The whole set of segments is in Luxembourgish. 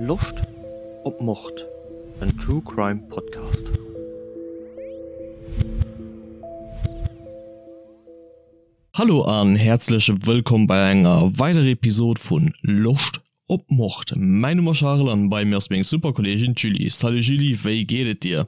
Loscht op Mord? En True Crime Podcast. Hallo an häerzlech wëllkomm bei enger weiderer Episode vun Loscht op Mord. Mäin Numm ass Charel an bei mir ass meng super Kolleegin d'Julie. Salut Julie, wéi geet et dir?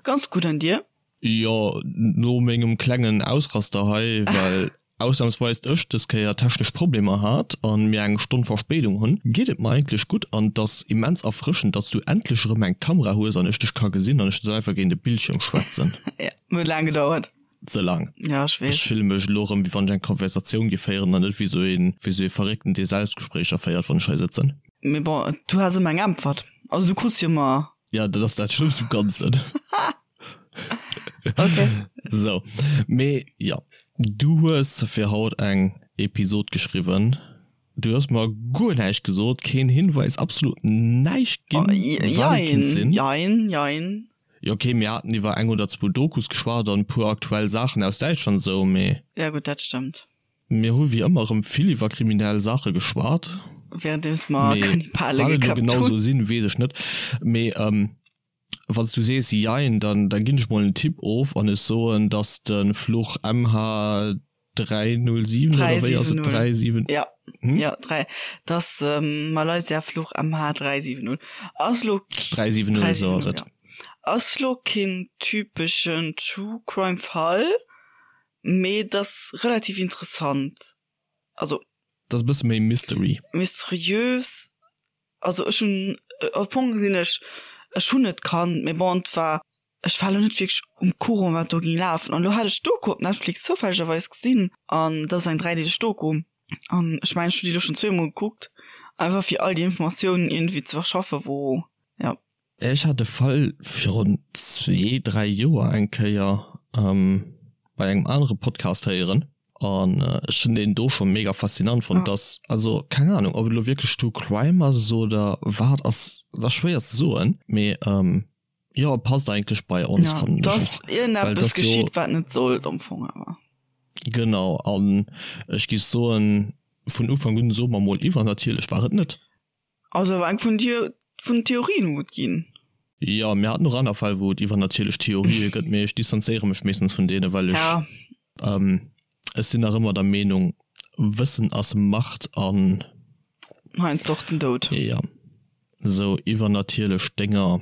Ganz gutt, an dir? Jo, no mengem klengen Ausraster hei, well ausnamsweis ech des Kéier technesch Problemer hat an mir eng Stonn Verspéidung hunn, geet et mer eigentlech gutt an et ass immens erfrëschend, datts du endlech erëm eng Kamera hues an ech dech ka gesinn an ech net einfach géint e Bildschirm schwätzen. Jo, huet laang gedauert. Ze laang. Ja, ech weess. Ech fille mech elo erëm, wéi wann ech eng Konversatioun géif féieren an net wéi esou een, wéi esou ee Verréckten, dee Selbstgespréicher féiert, wann ech hei sëtzen. Mee bon, du has ëmmer eng Äntwert. Also du krus jo ëmmer. Ja, dat ass dat Schlëmmst um Ganzen. Okay. Sou, mee jo, du hues fir haut eng Episod geschriwwen. Du hues mer guer näischt gesot, keen Hinweis, absolut näischt ginn, wat et kéint sinn. Jein, jein. Jo ok, mir haten iwwer eng oder zwou Dokus geschwat an e puer aktuell Saachen aus Däitschland esou, mee. Ja gutt, dat stëmmt. Mir hu wéi ëmmer erëm vill iwwer kriminell Saache geschwat. Währenddeems mer Mee Kannibale wat et elo geköppt genau hunn. esou sinn, weess ech net. Mee wann s du sees jein, dann da ginn ech mol en Tipp of an ech soen, dass de Fluch MH 307 oder wéi ass et? 370. Ja, hm? ja, 3. Das ähm, Malaysia Fluch MH 370. Ass lo 370, so ass et. Ja. Ass lo keen typeschen True Crime Fall, mee das relativ interessant. Also das e bësse méi Mystery. Mysteriös. Also ech hunn am Fong sinn ech ech hunn et kannt, mee bon, et war Ech war lo net wierklech um Courant wat do ging lafen an lo hat ech d'Doku op Netflix zoufällegerweis gesinn an dat ass eng dräideeleg Doku an ech mengen ech hunn déi lo schonn zweemol gekuckt einfach fir all déi Informatiounen iergendwéi ze verschaffe wou ja. Ech hat de Fall virun zwee, dräi Joer eng Kéier bei engem anere Podcast héieren an ech hunn deen do scho mega faszinant fonnt. Dass, also keng Ahnung ob et elo wierklech True Crime ass oder wat ass, dat ass schwéier ze soen, mee Jo, passt eigentlech bei ons, Ja, fannen ech dass och. Well iergendeppes dass jo. geschitt, wat net sollt am Fong awer. Genau, an ech géif soen, vun Ufank un, soe mer mol, iwwernatierlech war et net. Ass awer eng vun dir, vun den Theorien, wou et ginn. Jo, mir haten och aner Fäll, wou et iwwernatierlech Theorië gëtt, mee ech distanzéiere mech meeschtens vun deene, well ech, Ja. ech sinn nach ëmmer der Meenung, Wëssen ass Macht an. Heiansdo och den Doud. Jo. Sou iwwernatierlech Dénger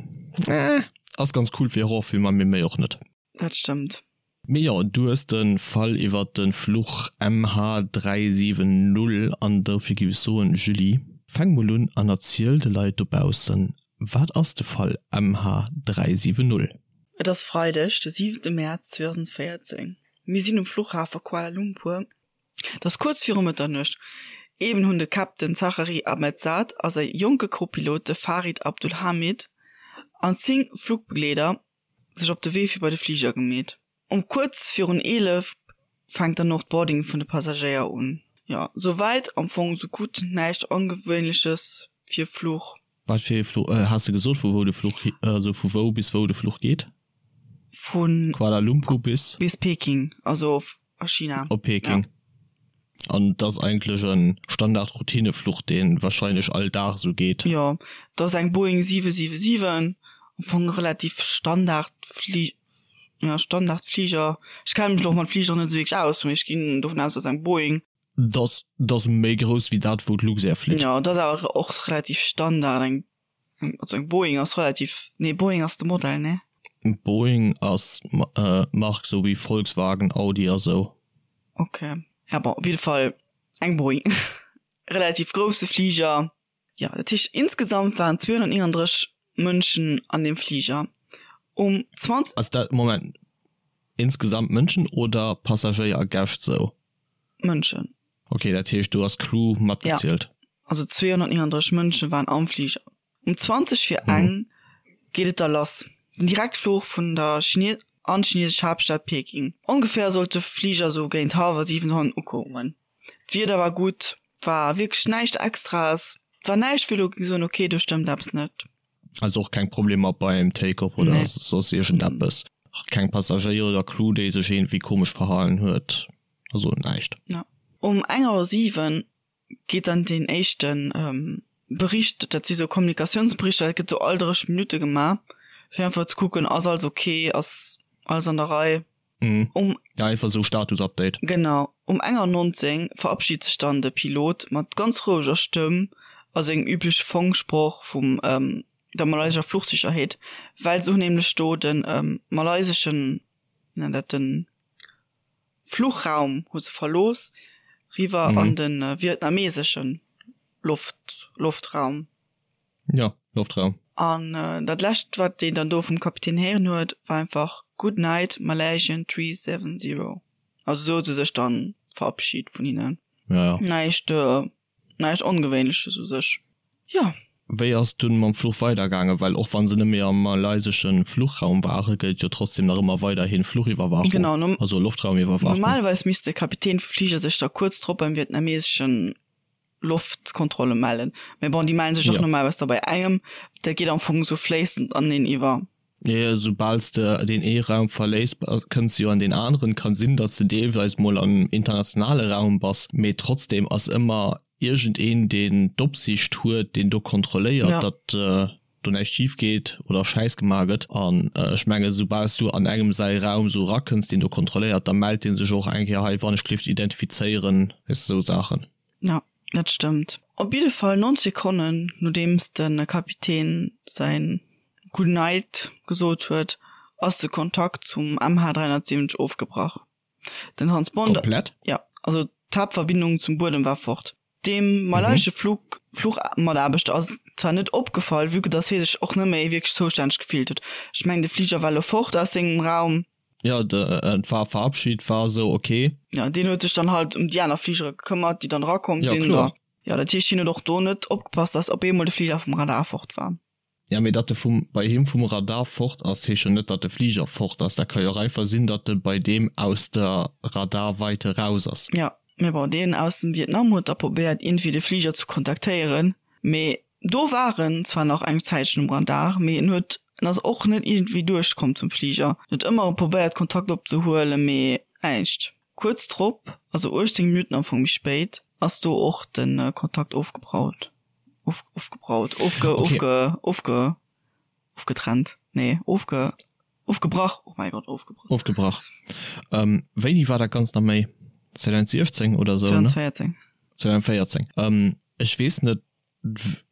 ass ganz cool fir Horrorfilmer, mee méi och net. Dat stëmmt. Mee jo, du hues de Fall iwwert de Fluch MH370 an dofir giff ech soen, Julie, fänk mol un an erziel de Leit dobaussen, wat ass de Fall MH370? Et ass Freideg, de siwente Mäerz 2014. Mir sinn um Fluchhafe Kuala Lumpur. Et ass kuerz viru Mëtternuecht. Eben hunn de Captain Zachary Ahmed Saad a säi jonke Co-Pilot, de Farid Abdul Hamid, an 10 Flugbegleeder sech op de Wee fir bei de Fliger gemeet. Um kuerz virun 11 fänkt dann och d'Boarding vun de Passagéier un. Jo, souwäit am Fong sou gutt, näischt Ongewéinleches fir Fluch. Wat fir ee Fluch? Has de gesot vu wou de Fluch, also vu wou bis wou de Fluch geet? Vu Kuala Lumpur bis? Bis Peking, also a China. Op Peking. Ja. An et ass eigentlech e Standard-Routinefluch, dee warscheinlech all Dag esou geet. Jo, et ass eng Boeing 777, am Fong relativ Standard-Fli, ja, Standard-Fliger. Ech kenne mech och mat Fligeren net esou wierklech aus, mee ech ginn dovun aus, dass eng Boeing. Dat ass méi grouss wéi dat, wou d'Luxair flitt. Jo, et ass awer och relativ Standard, eng Also eng Boeing ass relativ, nee Boeing ass de Modell, nee? Boeing ass d'Mark, sou wéi Volkswagen, Audi a sou. Ok, ja bon, op jidde Fall eng Boeing, relativ grousse Fliger. Jo, dat heescht insgesamt waren 239 Mënschen an deem Fliger. Um 20. Ass dat, Moment, insgesamt Mënschen oder Passagéier a Gäscht sou? Mënschen. Ok, dat heescht do ass Crew matgezielt? Ja, also 239 Mënsche waren am Fliger. Um 20 vir eng geet et da lass, den Direktfluch vun der Chine an d'chinesesch Haaptstad Peking. Ongeféier sollt de Fliger sou géint hallwer 7 dohannen ukommen. D'Wieder war gutt, war wierklech näischt Extraes, et war näischt wou elo géing soen, ok do stëmmt eppes net. Also och keng Problemer beim Take-off oder Nee. soss iergendeppes? Keng Passagéier oder Crew déi sech iergendwéi komesch verhalen huet? Also näischt. Ja. Um eng Auer 7 geet dann deen éischten. Bericht, dat si sou Kommunikatiounsberichter, dat gëtt sou all 30 Minutte gemaach, fir einfach ze kucken, ass alles ok, ass alles an der Rei. Mhm. Um, ja, einfach sou Status-Update. Genau. Um enger 19 verabschiedt sech dann de Pilot mat ganz roueger Stëmm a sengem übleche Funksproch vum ähm, der malaysescher Fluchsicherheet, well se hunn nämlech do den ähm, malaiseschen, wéi nennt dat, den Fluchraum hu se verlooss, riwwer mhm. an den äh, vietnameseschen Loft, Loftraum. Ja, Loftraum. An äh, dat lescht, wat deen dann do vum Kapitän héieren huet, war einfach Good night, Malaysian 370. Also sou huet se sech dann verabschied vun hinnen. Ja, ja. Näischt, äh, Näischt Ongewéinleches u sech, jo. Wéi ass et dunn mam Fluch weidergaangen? Well och wann se net méi am malayseschen Fluchraum waren, gëllt jo trotzdem nach ëmmer weiderhin Fluchiwwerwaachung, Genau, nom also Loftraumiwwerwaachung. Normalerweis misst de Kapitän vum Fliger sech da kuerz drop beim vietnameseschen Loftkontrolle mellen. Mä bon, déi mellen sech och Ja. normalerweis da bei engem. Dat geet am Fong esou fléissend aneneen iwwer. Jo, soubal s de deen ee Raum verléiss, kënns de jo an deen aneren. Kann sinn, datt s de deelweis mol am internationale Raum bass, mee trotzdem ass ëmmer iergendeen, deen d'Opsiicht huet, deen do kontrolléiert, datt do näischt schif geet oder Schäiss gemaach gëtt. An ech mengen, soubal s du an engem säi Raum esou erakënns, deen do kontrolléiert, da mellt dee sech och eng Kéier, hei, wann ech d'Lift identifizéieren, weess de, esou Saachen. Ja, dat stëmmt. Op jidde Fall 90 Sekonnen nodeems de Kapitän säin Good Night gesot huet, ass de Kontakt zum MH370 ofgebrach. Den Transponder. Komplett? Ja, also d'Haaptverbindung zum Buedem war fort. Dem malaysesche Flug Fluchmataarbechter ass zwar net opgefall, vue que dass hie sech och net méi wierklech zoustänneg gefillt huet. Ech mengen, de Fliger war elo fort aus sengem Raum. Jo, et war verabschid, war esou ok. Jo, deen huet sech dann halt ëm déi aner Fligere gekëmmert, déi dann erakomm Jo, sinn. kloer. Jo, dat heescht, hien huet och do net opgepasst, dass op eemol de Fliger vum Radar fort war. Ja, mee datt e vum, bei him vum Radar fort ass, heescht jo net, datt de Fliger fort ass. Dat ka jo och einfach sinn, datt e bei deem aus der Radarweite raus ass. Jo, mee bon, deen aus dem Vietnam huet da probéiert, iergendwéi de Fliger ze kontaktéieren, mee Do war en zwar nach eng Zäitchen um Radar, mee en huet en ass och net iergendwéi duerchkomm zum Fliger. En huet ëmmer erëm probéiert Kontakt opzehuelen, mee näischt. Kuerz drop, also 18 Minutten am Fong méi spéit, ass do och de Kontakt ofgebraut, of, ofgebraut, ofge, ofge, ofge, ofgetrennt, nee, ofge, ofgebrach, oh mäi Gott, ofgebrach. Ofgebrach. Wéini war dat Ganzt nach méi? 2017 oder sou, ne? 2014. 2014. Ech weess net,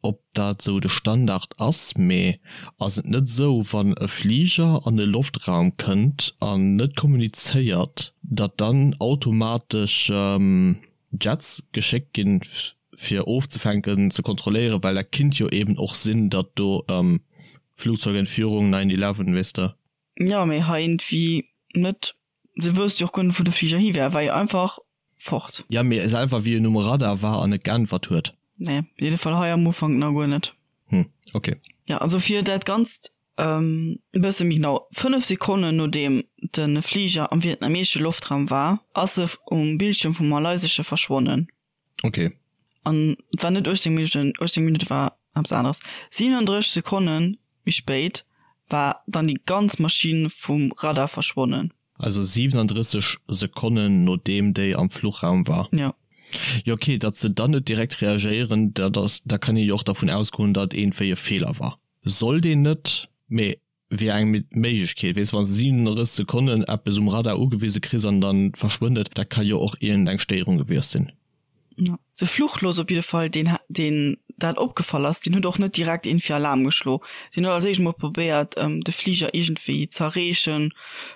ob dat esou de Standard ass, mee ass et net esou, wann e Fliger an de Loftraum kënnt an net kommunizéiert, datt dann automatesch Jets geschéckt ginn, fir ofzefänken, ze kontrolléieren, well dat kinnt jo eben och sinn, datt do Flugzeugentführung, 9/11, weess de. Jo, mee hei iergendwéi net. Se wousst jo och guer net wou de Fliger hi wär, war jo einfach fort. Ja mee selwer wéi en um Radar war an net geäntwert huet. Nee, op jidde Fall hei am Ufank nach guer net. Hm, ok. Ja, also fir dat Ganzt e bësse méi genau, 5 Sekonnen nodeem de Fliger am vietnameesche Loftraum war, ass e um Bildschierm vum malaysesche verschwonnen. Ok. An et war net 18 Minutten, 18 Minutte war eppes aneres. 37 Sekonne méi spéit war dann déi ganz Maschinn vum Radar verschwonnen. Also 37 Sekonnen nodeem déi am Fluchraum war. Jo. Jo ok, datt se dann net direkt reagéieren, dat ass, da kann ee jo och dervun ausgoen, datt iergendwéi e Feeler war. Sollt een net, mee wier eng Méiglechkeet. Weess, wann s de 37 Sekonnen eppes um Radar ugewise kriss an dann verschwënnt et, dat ka jo och iergend eng Stéierung gewiescht sinn. Jo. De Fluchlos op jidde Fall, deen deen dat opgefall ass, deen huet och net direkt iergendwéi Alarm geschlo. Deen huet als éischt mol probéiert, de Fliger iergendwéi z'erreechen,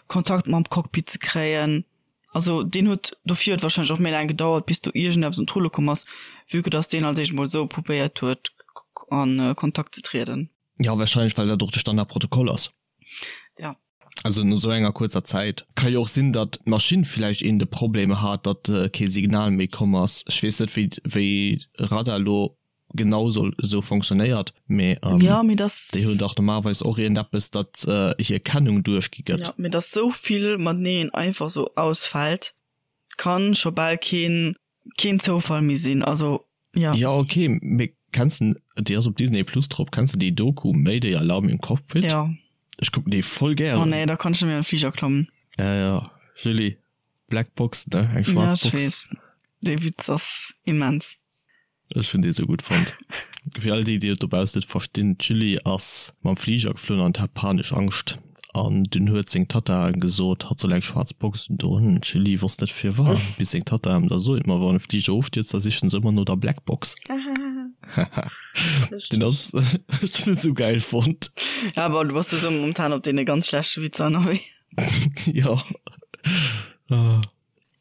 Kontakt mam Cockpit ze kréien. Also deen huet, dofir huet warscheinlech och méi laang gedauert, bis do iergendeppes un d'Rulle komm ass, vue que dass deen als éischt mol esou probéiert huet, a Kontakt ze trieden. Jo, wahrscheinlech well dat och de Standardprotokoll ass. Ja. Also no sou enger kuerzer Zäit. Ka jo och sinn, datt d'Maschinn villäicht een de Problem hat, datt kee Signal méi komm ass. Ech weess net wéi wéi Radar elo genau soll esou fonctionnéiert, mee Ja, mee dass. déi hunn dach normalerweis och iergendeppes, datt hir Kennung duerchgi gëtt. Ja, mee dass sou vill mateneen einfach sou ausfält, kann scho bal keen keen Zoufall méi sinn, also ja. Ja ok, mee kenns de, déi ass op Disney Plus drop, kenns de déi Doku Mayday Alarm im Cockpit? Ja. Ech kucken déi voll gären. Oh nee, da kann ech net méi an den Fliger klammen. Ja ja, Julie, Black Box ne, eng schwaarz Box. Ja ech weess, dee Witz ass immens. Ech hunn dee sou gutt fonnt. Fir all déi, déi et dobaussen net verstinn, D'Julie ass mam Fliger geflunn an hat panesch Angscht. An dunn huet seng Tatta gesot, hatt soll eng schwaarz Box undoen. D'Julie wosst net firwat, bis seng Tatta em da sot, ma wann e Fliger ofstierzt, da sichen se ëmmer no der Black Box. Den ass, ech hunn en sou gäil fonnt. Ja, bon, du bass sou momentan op deene ganz schlechte Witzer ënnerwee. Jo.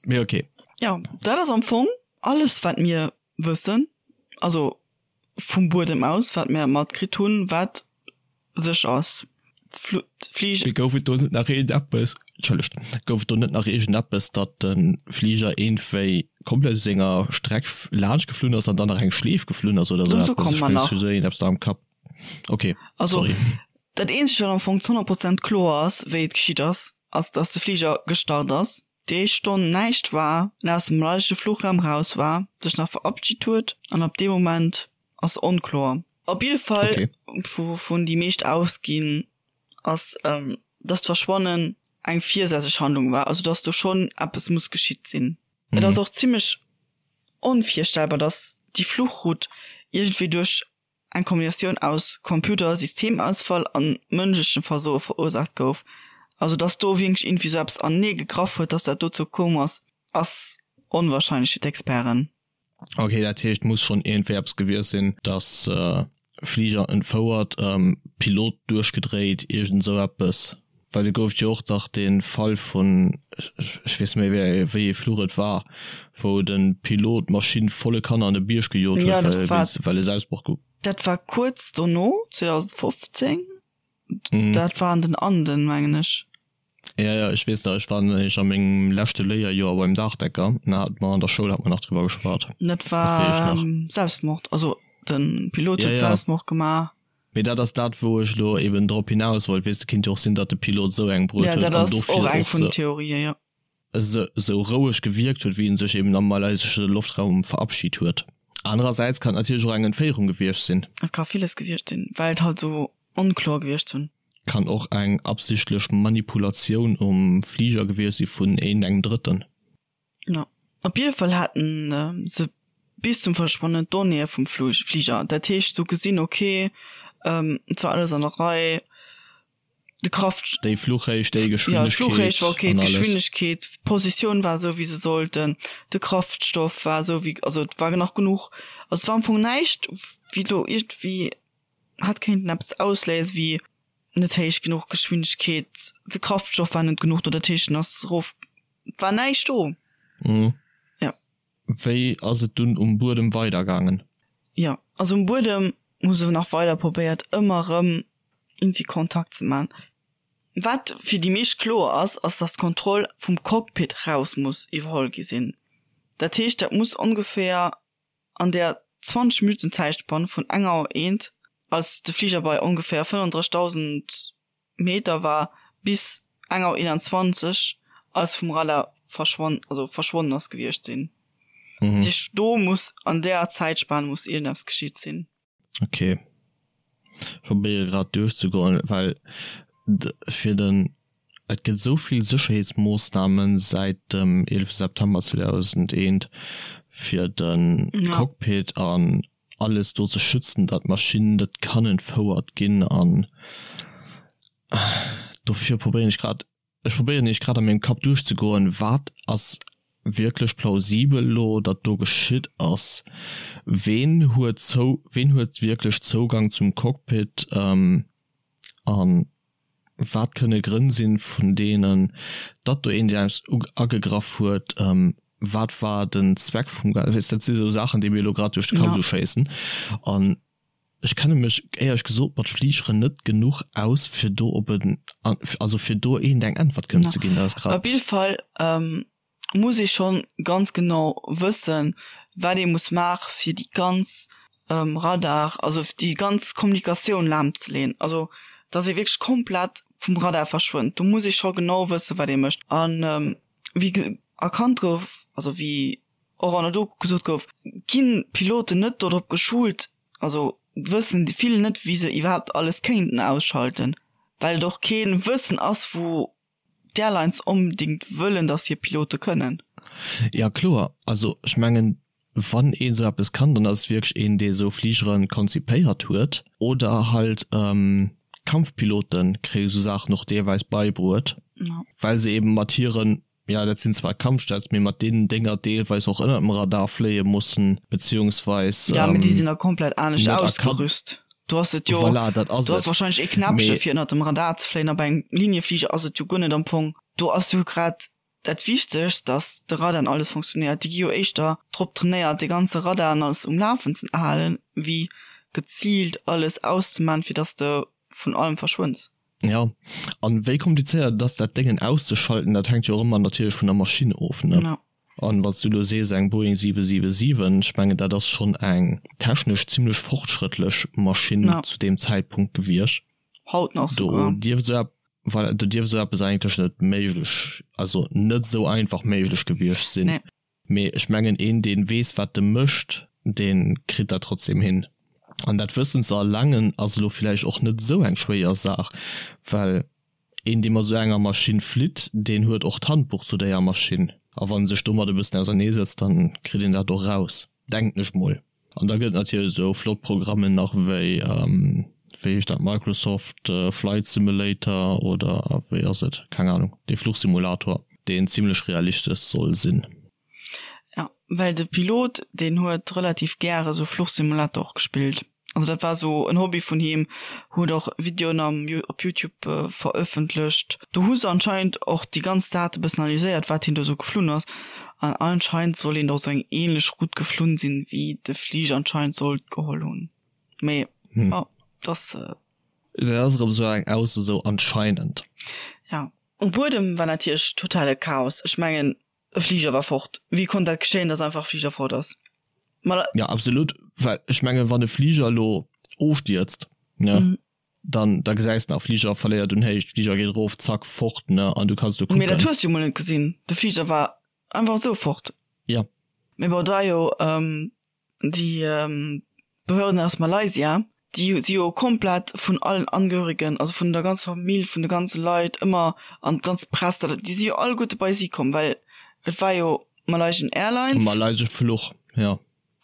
Mee ok. Jo, dat ass am Fong alles wat mir wëssen, also vum Buedem aus, wat mir matkritt hunn, wat sech ass. Fliger. Mee gouf et do net nach iergendeppes, Entschëllegt, gouf et do net nach iergendeppes, datt de Fliger iergendwéi komplett u senger Streck laanscht geflunn ass an dann nach eng Schleef geflunn ass oder esou eppes? Ech mengen, ech hu sou iergendeppes da am Kapp. Ok, Also, sorry. dat eenzegt, wat am Fong zu 100 Prozent kloer ass, wéi et geschitt ass, ass, datt de Fliger gestart ass, déi éischt Stonn näischt war, en aus dem malaysesche Fluchraum raus war, sech nach verabschit huet an ab deem Moment ass onkloer. Op jidde Fall, okay. Wouvun déi meescht ausginn, ass, dass d'Verschwannen eng virsätzlech Handlung war, also dass do schonn eppes muss geschitt sinn. Mhm. Et ass och zimmlech onvirstellbar, dass déi Fluchroute iergendwéi duerch eng Kombinatioun aus Computer-Systemausfall an mënschlechem Versoe verursaacht gouf. Also dass do wierklech iergendwéi sou eppes anenee gegraff huet, dass dat dozou koum ass, ass onwahrscheinlech fir d'Experten. Ok, dat heescht muss schonn iergendwéi eppes gewiescht sinn, dass Fliger entfouert, Pilot duerchgedréit, iergend esou eppes. Well et gouf jo och dach dee Fall vun, ech weess net méi wéi ee Fluch et war, wou de Pilot d'Maschinn volle Kanne an e Bierg gejot huet, well e Selbstmord ge. Dat war kuerz dono, 2015, dat war an den Anden, mengen ech. Jo, jo, ech weess nach, ech war nämlech a mengem leschte Léierjoer beim Daachdecker, an da hate mer an der Schoul hate mer nach driwwer geschwat. Dat war Selbstmord, also de Pilot huet Selbstmord gemaach. Mee dat ass dat, wou ech elo eben drop hinaus wollt. Weess de, kinnt jo och sinn, datt de Pilot esou eng bruet huet an dofir och eng vun den Theorien, jo. Esou roueg gewierkt huet, wéi en sech eben am malaysesche Loftraum verabschit huet. Anerersäits kann et natierlech och eng Entféierung gewiescht sinn. Et ka villes gewiescht sinn, well et halt esou onkloer gewiescht sinn. Kann och eng absichtlech Manipulatioun um Fliger gewiescht si vun iergendengem Drëtten. Jo, op jidde Fall haten se bis zum Verschwannen d'Donnéeë vum Fliger. Dat heescht, se hu gesinn, ok, et war alles an der Rei, de Kraft. Déi Fluchhéicht, déi Geschwindegkeet. Jo, d'Fluchhéicht war ok, d'Geschwindegkeet, d'Positioun war esou, wéi se sollten, de Kraftstoff war esou, wéi, also et war nach genuch. Also et war am Fong näischt, wéi do iergendwéi hätt kéinten eppes ausléisen, wéi net héich genuch Geschwindegkeet, de Kraftstoff war net genuch do, dat heescht en ass erof, et war näischt do. Mhm. Ja. Wéi ass et dunn um Buedem weidergaangen? Jo, also um Buedem hu se nach weider probéiert ëmmer erëm iergendwéi Kontakt ze man. Wat fir déi meescht kloer ass, ass datt d'Kontroll vum Cockpit raus muss iwwerholl gi sinn. Dat heescht dat muss ongeféier an der 20 Minutten Zäitspann vun enger Auer eent, als de Fliger bei ongeféier 35.000 Meter war, bis eng Auer 21, als vum Radar verschwonn, also verschwonnen ass, gewiescht sinn. Dat heescht, do muss an där Zäitspan muss iergendeppes geschitt sinn. Ok. Ech probéiere grad duerchzegoen, well fir den Et gëtt esou vill Sécherheetsmoossname säit dem 11 September 2001 fir de Cockpit an alles do ze schützen, datt d'Maschinn net kann entfouert ginn an dofir probéieren ech grad, ech probéieren iech grad a mengem Kapp duerchzegoen, wat ass wierklech plausibel elo, datt do geschitt ass, ween huet zou, ween huet wierklech Zougang zum Cockpit an wat kënne Grënn sinn, vun deenen datt do een eppes agegraff huet, wat war den Zweck vum Ganzen, weess, dat si sou Saachen, déi mir elo grad duerch de Kapp esou schéissen. An ech kenne mech éierlech gesot mat Fligeren net genuch aus, fir do op en, also fir do eent eng Äntwert kënnen ze ginn. Dat ass grad. Op jidde Fall muss ee schonn ganz genau wëssen, wat ee muss maache fir déi ganz Radar, also déi ganz Kommunikatioun lahmzeleeën, also datt ee wierklech komplett vum Radar verschwënnt. Do muss ee scho genau wëssen, wat ee mécht. A wéi erkannt gouf, also wéi och an der Doku gesot gouf, ginn d'Piloten net dodrop geschult, also wëssen vill net, wéi se iwwerhaapt alles kéinten ausschalten, well et och kee Wëssen ass, wou d'Airlines onbedingt wëllen, dass hir Pilote kënnen. Ja kloer, also ech mengen. Wann een esou eppes kann, dann ass et wierklech een, dee esou Fligere konzipéiert huet. Oder halt Kampfpilote kréie esou Saachen och deelweis beibruet, well se eben mat hiren, jo dat sinn zwar Kampfjets, mee mat deenen Dénger deelweis och ënnert dem Radar fléie mussen, beziehungsweis. Jo, mee déi sinn da komplett anescht ausgerüst. Do ass et jo, voilà, dat ass do ass wahrscheinlech ee Knäppche fir ënnert dem Radar ze fléien a bei engem Liniefliger ass et jo guer net am Fong. Do ass jo grad Dat Wichtegst, dass de Radar an alles funktionéiert. Déi gi jo éischter drop trainéiert, de ganze Radar an alles um Lafen ze halen, wéi geziilt alles auszemaachen, fir dass de vun allem verschwënns. Jo, an wéi komplizéiert et ass, dat Déngen auszeschalten, dat hänkt jo och ëmmer natierlech vun der Maschinn of, ne? Jo. An wann s du elo sees, eng Boeing 777, ech mengen, dat ass schonn eng technesch zimlech fortschrëttlech Maschinn zu deem Zäitpunkt gewiescht. Haut nach souguer. Do dierft esou Voilà, do dierft esou eppes eigentlech net méiglech, also net esou einfach méiglech gewiescht sinn. Nee. Mee ech mengen, een deen weess wat e mécht, dee kritt dat trotzdem hin. An dat Wëssen ze erlangen ass elo villäicht och net esou eng schwéier Saach, well een dee mat esou enger Maschinn flitt, deen huet och d'Handbuch zu déier Maschinn. A wann e sech domat e bëssen auserneesetzt, dann kritt een dat och raus, denken ech mol. An da gëtt et natierlech esou flott Programmen nach wéi, wéi heescht dat, Microsoft Flight Simulator oder wéi ass et, keng Ahnung, dee Fluchsimulator, deen zimlech realistesch soll sinn. Ja, well de Pilot, deen huet relativ gäre sou Fluchsimulator och gespillt. Also dat war sou en Hobby vun him, huet och Videoen am op Youtube verëffentlecht. Do hu se anscheinend och déi ganz Date bëssen analyséiert, wat hien do sou geflunn ass. An anscheinend soll een och sou eng ähnlech Route geflunn sinn, wéi de Fliger anscheinend sollt geholl hunn. Mee jo, dass. Dat ass erëm sou eng Ausso, sou anscheinend. Ja. Um Buedem war natierlech totale Chaos. Ech mengen, e Fliger war fort. Wéi konnt dat geschéien, dass einfach e Fliger fort ass? Ma. Ja, absolut. Well ech mengen, wann e Fliger elo ofstierzt, ne, dann da gesäis de nach, Fliger verléiert un Héicht, Fliger geet erof, zack, fort, ne, an du kanns do Mee dat kucken. hues du jo mol net gesinn. De Fliger war einfach esou fort. Ja. Mee bon, et war jo déi Behörden aus Malaysia, déi si jo komplett vun allen Angehörigen, also vun der ganzer Famill, vun de ganze Leit ëmmer an d'ganz Press, dat déi si jo alleguerte bei si komm, well et war jo Malaysian Airlines. Malaysesch Fluch, jo.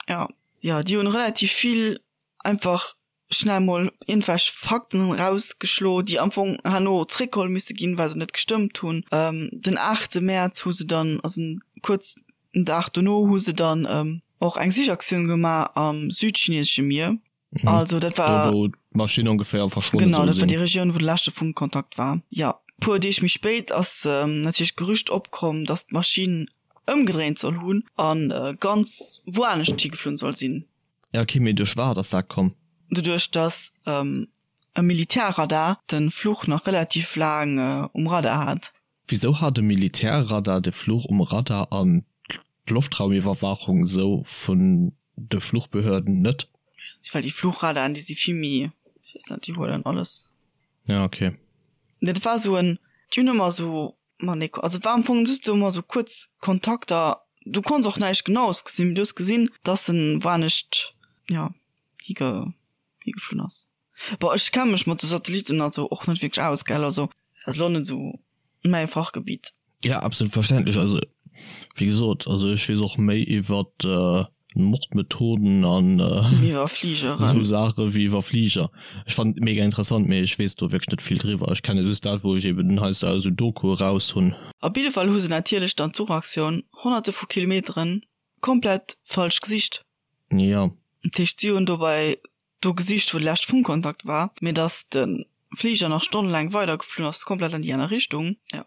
Ja, jo, déi hunn relativ vill einfach schnell mol iergendwelch Fakten erausgeschlo, déi am Fong herno zréckgeholl misse ginn, well se net gestëmmt hunn. Den aachte Mäerz hu se dann, also kuerz den Dag dono, hu se dann och eng Sichaktioun gemaach am südchinesesche Mier. Also dat war. Do wou d'Maschinn ongeféier verschwonne soll sinn. Genau, dat war déi Regioun, wou de leschte Funkkontakt war. Jo, puer Deeg méi spéit ass natierlech d'Gerücht opkomm, datt d'Maschinn ëmgedréint soll hunn a ganz wouanescht higeflunn soll sinn. Ja ok, mee duerch wat ass dat komm? Doduerch dass e Militärradar de Fluch nach relativ laang um Radar hat. Wisou hat e Militärradar de Fluch um Radar an d'Loftraumiwwerwaachung sou vun de Fluchbehörden net? Well déi Fluchradaren déi si vill méi, ech weess net, déi huelen alles. Ja ok. Dat war sou en, déi hunn ëmmer sou Ma nee, also et war am Fong just sou emmer sou kuerz Kontakter, du konns och näischt genaues gesinn, mee du hues gesinn, dass en woanescht, jo, hige higeflunn ass. Bon, ech kenne mech mat sou Satelliten also och net wierklech aus, gell, also dat ass lo net sou mäi Fachgebiet. Ja, absolut verständlech. Also wéi gesot, also ech weess och méi iwwert Mordmethoden an iwwer Fligeren esou Saache wéi iwwer Fliger. Ech fannen et mega interessant, mee ech weess do wierklech net vill driwwer. Ech kenne just dat, wou ech eben heiansdo aus esou Dokue raus hunn. Op jidde Fall hu se natierlech dann d'Suchaktioun honnerte vu Kilometeren komplett falsch gesicht. Jo. Dat heescht, si hunn dobäi do gesicht, wou de leschte Funkkontakt war, mee datt de Fliger nach stonnelaang weidergeflunn ass, komplett an déi aner Richtung. Jo.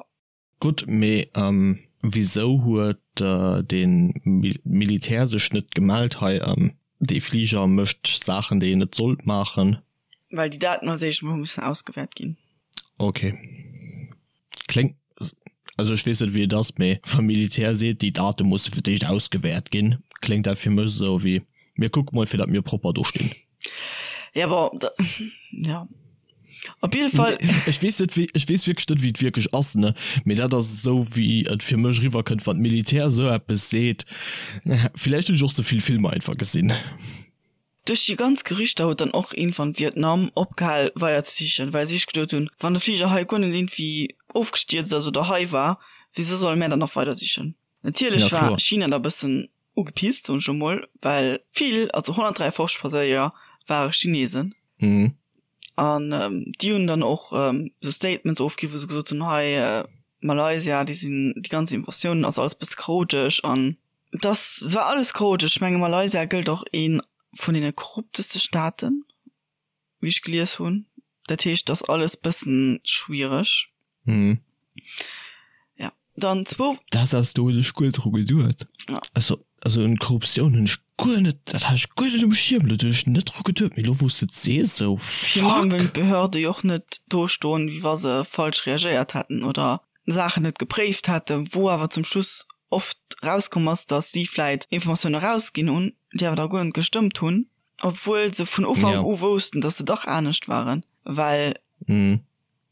Gutt, mee wisou huet de Militär sech net gemellt, hei dee Fliger mécht Saachen déi en net sollt maachen? Well déi Daten als éischt emol hu missen ausgewäert ginn. Ok. Kléngt, also ech weess net wéi et ass, mee wa Militär seet déi Date musse fir d'éischt ausgewäert ginn, kléngt dat fir mech esou wéi mir kucke mol fir datt mir propper do stinn. Ja bon, da, ja. Op jidde Fall. Ech weess net wéi, ech weess wierklech net wéi et wierklech ass, ne, mee dat ass esou wéi et fir mech eriwwer kënnt, wann d'Militär esou eppes seet. Villäicht hunn ech och ze vill Filmer einfach gesinn. Duerch déi ganz Gerüchter huet dann och iergendwann Vietnam opgehal weider ze sichen, well si sech geduet hunn, wann de Fliger hei guer net iergendwéi ofgestierzt ass oder hei war, wisou solle mär dann nach weider sichen? Natierlech war China da bëssen. ugepisst, soen ech elo mol, well vill, also 153 Passagéier ware Chinesen. Mhm. An déi hunn dann och esou Statements ofginn, wou se gesot hunn, hei Malaysia, déi sinn, déi ganz Invasioun ass alles bësse chaotesch an dass et war alles chaotesch. Ech menge Malaysia gëllt och ee vun deene korrupteste Staaten, wéi ech gelies hunn. Dat heescht, et ass alles bëssen schwiereg. Mhm. Ja, dann zwou. Dat ass do hunn ech guer net dru geduet. Ja. Also, also un Korruptioun hunn ech guer net, dat hat ech guer net um Schierm, do hunn ech net dru geduet, mee elo wou s de et sees, esou, Virun allem fuck. wëllen d'Behörde jo och net do stoen, wéi wa se falsch reagéiert hätten oder Saachen net gepréift hätten, wou awer zum Schluss oft rauskomm ass, datt si vläit Informatioune rausginn hunn, déi awer da guer net gestëmmt hunn, obwuel se vun Ufank Ja. u woussten, datt se dach anescht waren, well Mhm.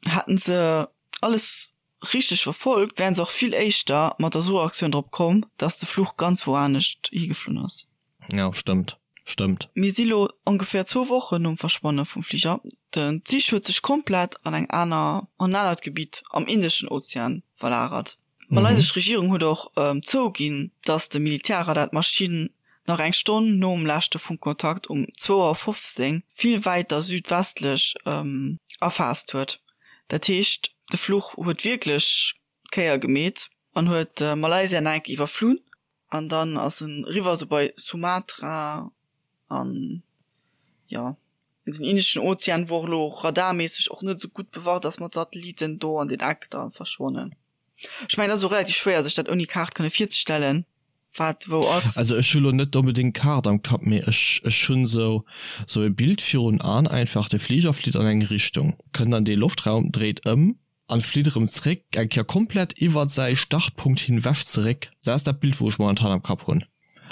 hätten se alles richteg verfolgt, wären se och vill éischter mat der Suchaktioun drop komm, dass de Fluch ganz wou anescht higeflunn ass. Ja, stëmmt. Stëmmt. Mir si lo ongeféier zwou Wochen nom Verschwanne vum Fliger. Den d'Sich huet sech komplett an eng aner, an en anert Gebitt am Indeschen Ozean verlagert. D'malaysesch Regierung huet och zouginn, datt de Militärradar d'Maschinn nach eng Stonn nom leschte Funkkontakt um zwou Auer 15 vill wäiter südwestlech erfaasst huet. Dat heescht, de Fluch huet wierklech d'Kéier gemeet an huet Malaysia nach eng Kéier iwwerflunn an dann ass en eriwwer esou bei Sumatra an jo den Indeschen Ozean, wou och elo radarméisseg och net esou gutt bewacht ass mat Satelliten, do an deen Eck da verschwonnen. Ech mengen, et ass och relativ schwéier, sech dat ouni Kaart kënne virzestellen, wat wou ass. Also ech hu lo net onbedéngt d'Kaart am Kapp, mee ech ech hunn sou sou e Bild virun An einfach, de Fliger flitt an eng Richtung, kënnt an dee Loftraum, dréit ëm an flitt erëm zréck, eng Kéier komplett iwwert säi Startpunkt hinwech zeréck. Dat ass dat Bild wou ech momentan am Kapp hunn.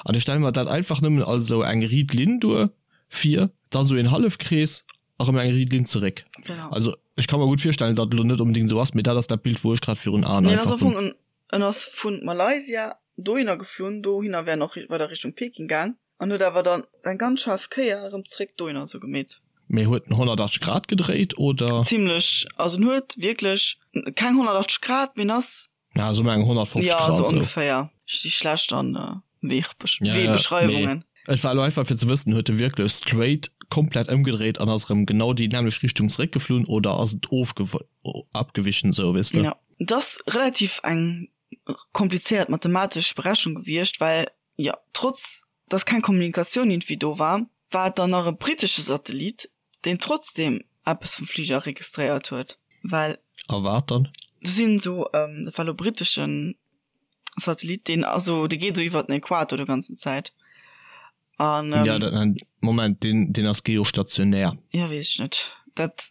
An ech stelle mer dat einfach nëmmen als esou eng riit Linn duer, vir, dann esou een Hallefkrees a rëm eng riit Linn zeréck. Genau. Also ech ka mer gutt virstellen, datt et elo net onbedéngt esou ass, mee dat ass dat Bild, wou ech grad virun Aen Nee, en ass einfach am hunn. Fong en, en ass vu Malaysia dohinner geflunn, dohinner wär en och weider Richtung Peking gaang an huet awer dann eng ganz schaarf Kéier erëm zeréck dohinner esou gemeet. Mee huet en 180 Grad gedréit, oder? Zimlech, also en huet wierklech keng 180 Grad, mee en ass Ja, so eng 150 Ja, Grad so so. ongeféier. Ech si schlecht an äh, Weegbesch Ja, ja, Weebeschreiwungen. mee et war elo einfach fir ze wëssen, huet e wierklech straight komplett ëmgedréit an ass erëm genau déi nämmlecht Richtung zeréckgeflunn oder ass et ofgew abgewichen sou, weess de? Ja, et ass relativ eng komplizéiert mathematesch Berechnung gewiescht, well jo, trotz dass keng Kommunikatioun iergendwéi do war, war et dann nach e brittesche Satellit, deen trotzdem eppes vum Fliger registréiert huet, well. A wat dann? Do sinn esou, dat war elo britteschen Satellit, deen ass esou, dee geet esou iwwert den Äquator de ganzen Zäit an. Ja, dat, Moment, deen, deen ass geostationär. Ja, weess ech net, dat.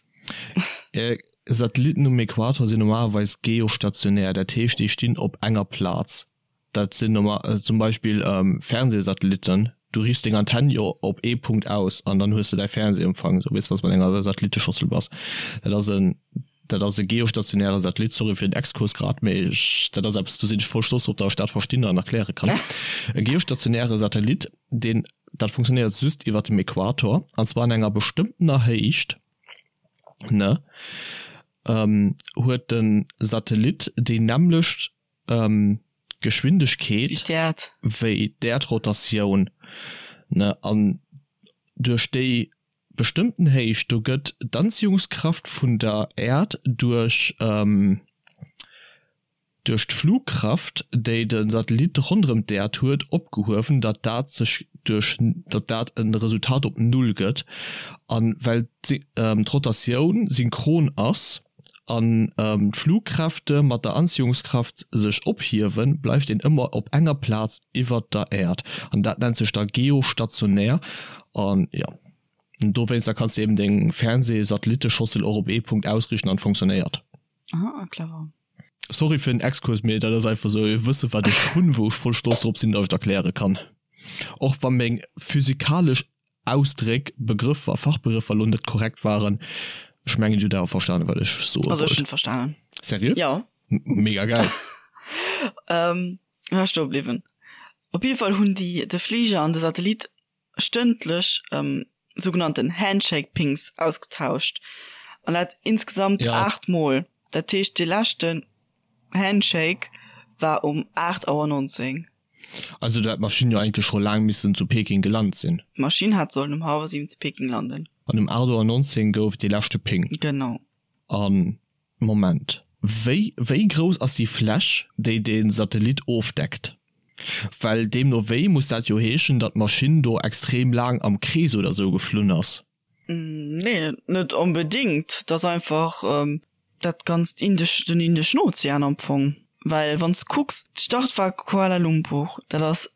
Satellitten um Äquator sinn normalerweis geostationär, dat heescht, déi stinn op enger Plaz. Dat sinn normal zum Beispill Fernsehsatellitten, du riichts deng Antenn jo op ee Punkt aus an dann hues de däi Fernsehempfang, sou weess was mat enger Satelliteschossel bass. Dat ass en dat ass e geostationäre Satellit, sorry fir den Exkurs grad, mee ech dat ass eppes do sinn ech voll stolz drop, datt ech dat verstinn an erkläre kann. E geostationäre Satellit, deen dat funktionéiert just iwwert dem Äquator an zwar an enger bestëmmtener Héicht, ne, huet de Satellit déi nämmlecht Geschwindegkeet wéi d'Äerdrotatioun, ne, an duerch déi bestëmmten Héicht do gëtt d'Anziehungskraft vun der Äerd duerch duerch d'Flugkraft, déi de Satellit ronderëm d'Äerd huet, opgehuewen, datt dat sech duerch datt dat e Resultat op Null gëtt. A well d'Rotatioun synchron ass, an d'Flugkräfte mat der Anziehungskraft sech ophiewen, bleift een ëmmer op enger Plaz iwwert der Äerd an dat nennt sech da geostationär an jo dowéinster kanns de eben deng Fernseh-Satelliteschossel och op ee Punkt ausriichten an funktionéiert. Aha, clever. Sorry fir den Exkurs, mee dat ass einfach sou e Wësse wat ech hunn, wou ech voll stolz drop sinn, datt ech et erkläre kann, och wa meng physikalesch Ausdréck, Begrëffer, Fachbegrëffer elo net korrekt waren. Ech mengen, Dir hutt awer verstanen, wat ech soe Also ech wollt. hunn verstanen. Seriö? Jo. Mega geil. Ähm, wou war ech stoe bliwwen? Op jidde Fall hunn déi de Fliger an de Satellit stëndlech ähm, sougenannten Handshake-Pings ausgetauscht. An dat insgesamt Ja. 8 Mol. Dat heescht, dee leschten Handshake war um 8 Auer 19. Also do hätt d'Maschinn jo eigentlech scho laang missen zu Peking gelant sinn. D'Maschinn hat sollen um hallwer 7 zu Peking landen. An um 8 Auer 19 gouf et dee leschte Ping. Genau. An, Moment, wéi, wéi grouss ass déi Fläch, déi dee Satellit ofdeckt? Well deemno wéi muss dat jo heeschen, datt d'Maschinn do extrem laang am Krees oder sou geflunn ass. Nee, net onbedingt. Et ass einfach dat ganzt Indesch, den Indeschen Ozean am Fong. Well wann s de kucks, d'Start war Kuala Lumpur, dat ass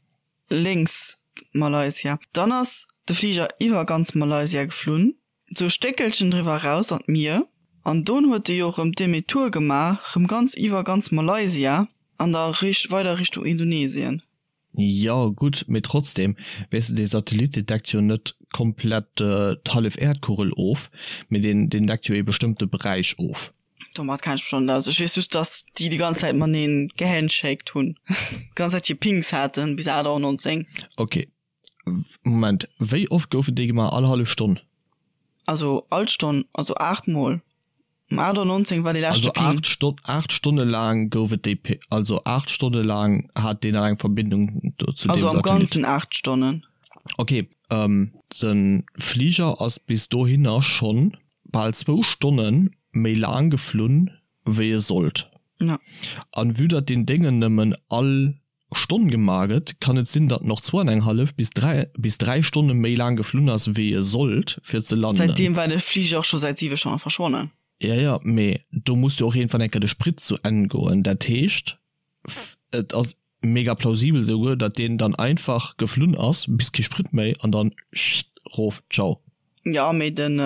lénks Malaysia. Dann ass de Fliger iwwer ganz Malaysia geflunn, sou e Stéckelchen driwwer eraus an d'Mier. An don huet e jo rëm Demi-tour gemaach, rëm ganz iwwer ganz Malaysia an da weider Richtung Indonesien. Jo gutt, mee trotzdem, weess de, dee Satellit dee deckt jo net komplett d'hallef Äerdkugel of, mee deen deen deckt jo ee bestëmmte Beräich of. Domat kenn ech mech net aus. Ech weess just, datt déi déi ganz Zäit matenee gehandshaked hunn, déi ganz Zäit hir Pings haten bis 8 Auer 19. Ok, Moment, wéi oft goufen déi gemaach? All hallef Stonn? Also all Stonn, also 8 mol. Um 8 Auer 19 war dee leschte Also 8 Stonn, 8 Stonne laang gouf et déi P, also 8 Stonne laang hat deen nach eng Verbindung do zu deem Also am Satellit. Ganzen 8 Stonnen. Ok, de Fliger ass bis dohinner schonn bal zwou Stonne méi laang geflunn wéi e sollt. Ja. An vue datt deen Déngen nëmmen all Stonn gemaach gëtt, kann et sinn, datt en och zwou an eng hallef bis 3 bis 3 Stonne méi laang geflunn ass, wéi e sollt, fir ze landen. Säitdeem war de Fliger och scho säit 7 Stonne verschwonnen. Ja, ja, mee do muss jo och iergendwann eng Kéier de Sprit zu Enn goen. Dat heescht, et ass mega plausibel esouguer, datt deen dann einfach geflunn ass bis kee Sprit méi an dann rof, ciao. Ja, mee den,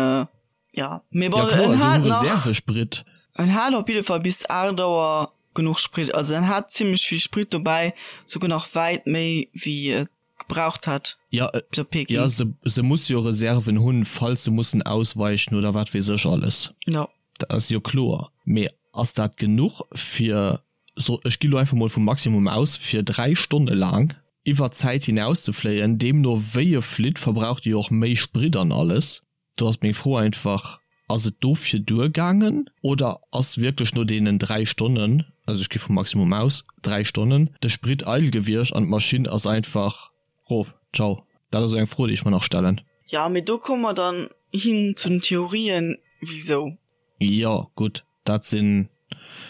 ja, mee bon, ja, kloer, en hat nach Reservesprit. En hat op jidde Fall bis 8 Auer genuch Sprit. Also en hat zimmlech vill Sprit dobäi, souguer nach wäit méi wéi et gebraucht hätt Ja, bis op Peking. ja se, se musse jo Reserven hunn, falls se mussen ausweichen oder wat weess ech alles. Ja. Dat ass jo kloer. Mee ass dat genuch fir, so ech gi lo einfach mol vum Maximum aus, fir 3 Stonne laang iwwer d'Zäit hinaus ze fléien? Deemno wéi e flitt, verbraucht e jo och méi Sprit an alles. Do ass meng Fro einfach, Ass et dofir duergaangen oder ass wierklech no deenen 3 Stonnen, also ech gi vum Maximum aus, 3 Stonnen, de Sprit eidel gewiescht an d'Maschinn ass einfach rof? Ciao. Dat ass esou eng Fro, déi ech mer nach stellen. Jo, mee do komme mer dann hin zu den Theorien, wisou. Jo, gutt, dat sinn,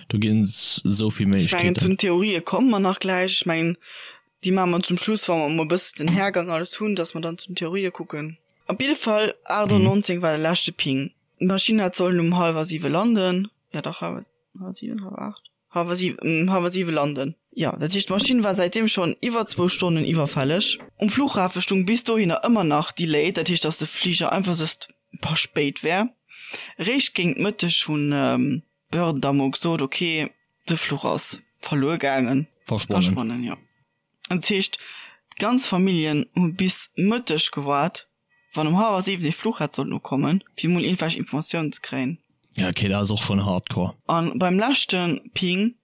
do ginn et esou vill Ech mengen, zu Méiglechkeeten. den Theorië komme mer nach gläich. Ech mengen, déi maache mer zum Schluss, wa mer emol e bësse den Hergang alles hunn, datt mer dann zu den Theorië kucken. Op jidde Fall, 8.19 war de leschte Ping. D'Maschinn hat sollen um hallwer siwe landen. Jo dach, hallwer siwen, hallwer 8? Hallwer siwen, hallwer siwe landen. Jo, dat heescht, d'Maschinn war säitdeem schonn iwwer zwou Stonnen iwwerfälleg. Um Flughafe stung bis dohinner ëmmer nach Delayed, dat heescht, datt de Fliger einfach just e paar spéit wär. Eréischt géint Mëtteg hunn d'Behörden da mol gesot, ok, de Fluch ass verluer gaangen. Verschwonnen. Verschwonnen, jo. Dat heescht, d'ganz Familljen hu bis Mëtteg gewaart, wann um hallwer 7 dee Fluch hätt sollen ukommen, fir mol iergendwelch Informatiounen ze kréien. Ja, okay, dat ass och schonn hardcore. A beim leschte Ping